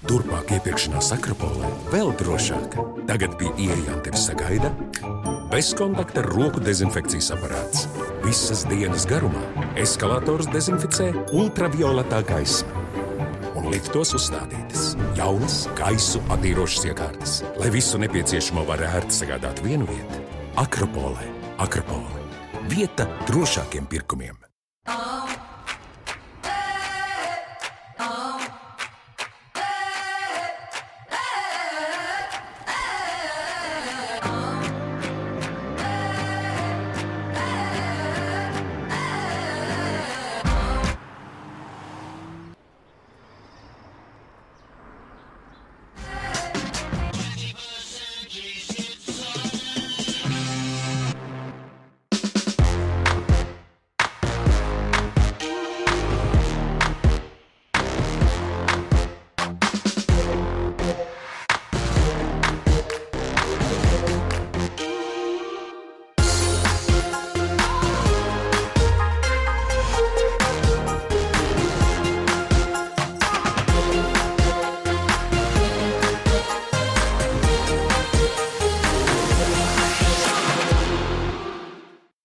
Turpmāk iepirkšanās Akropolē vēl drošāk. Tagad pie ieejām tevi sagaida bezkontakta roku dezinfekcijas aparāts. Visas dienas garumā eskalators dezinficē ultravioletā gaisma. Un liftos uzstādītas jaunas gaisu attīrošas iekārtas, lai visu nepieciešamo var ērti sagādāt vienu vietu. Akropolē. Akropole. Vieta drošākiem pirkumiem.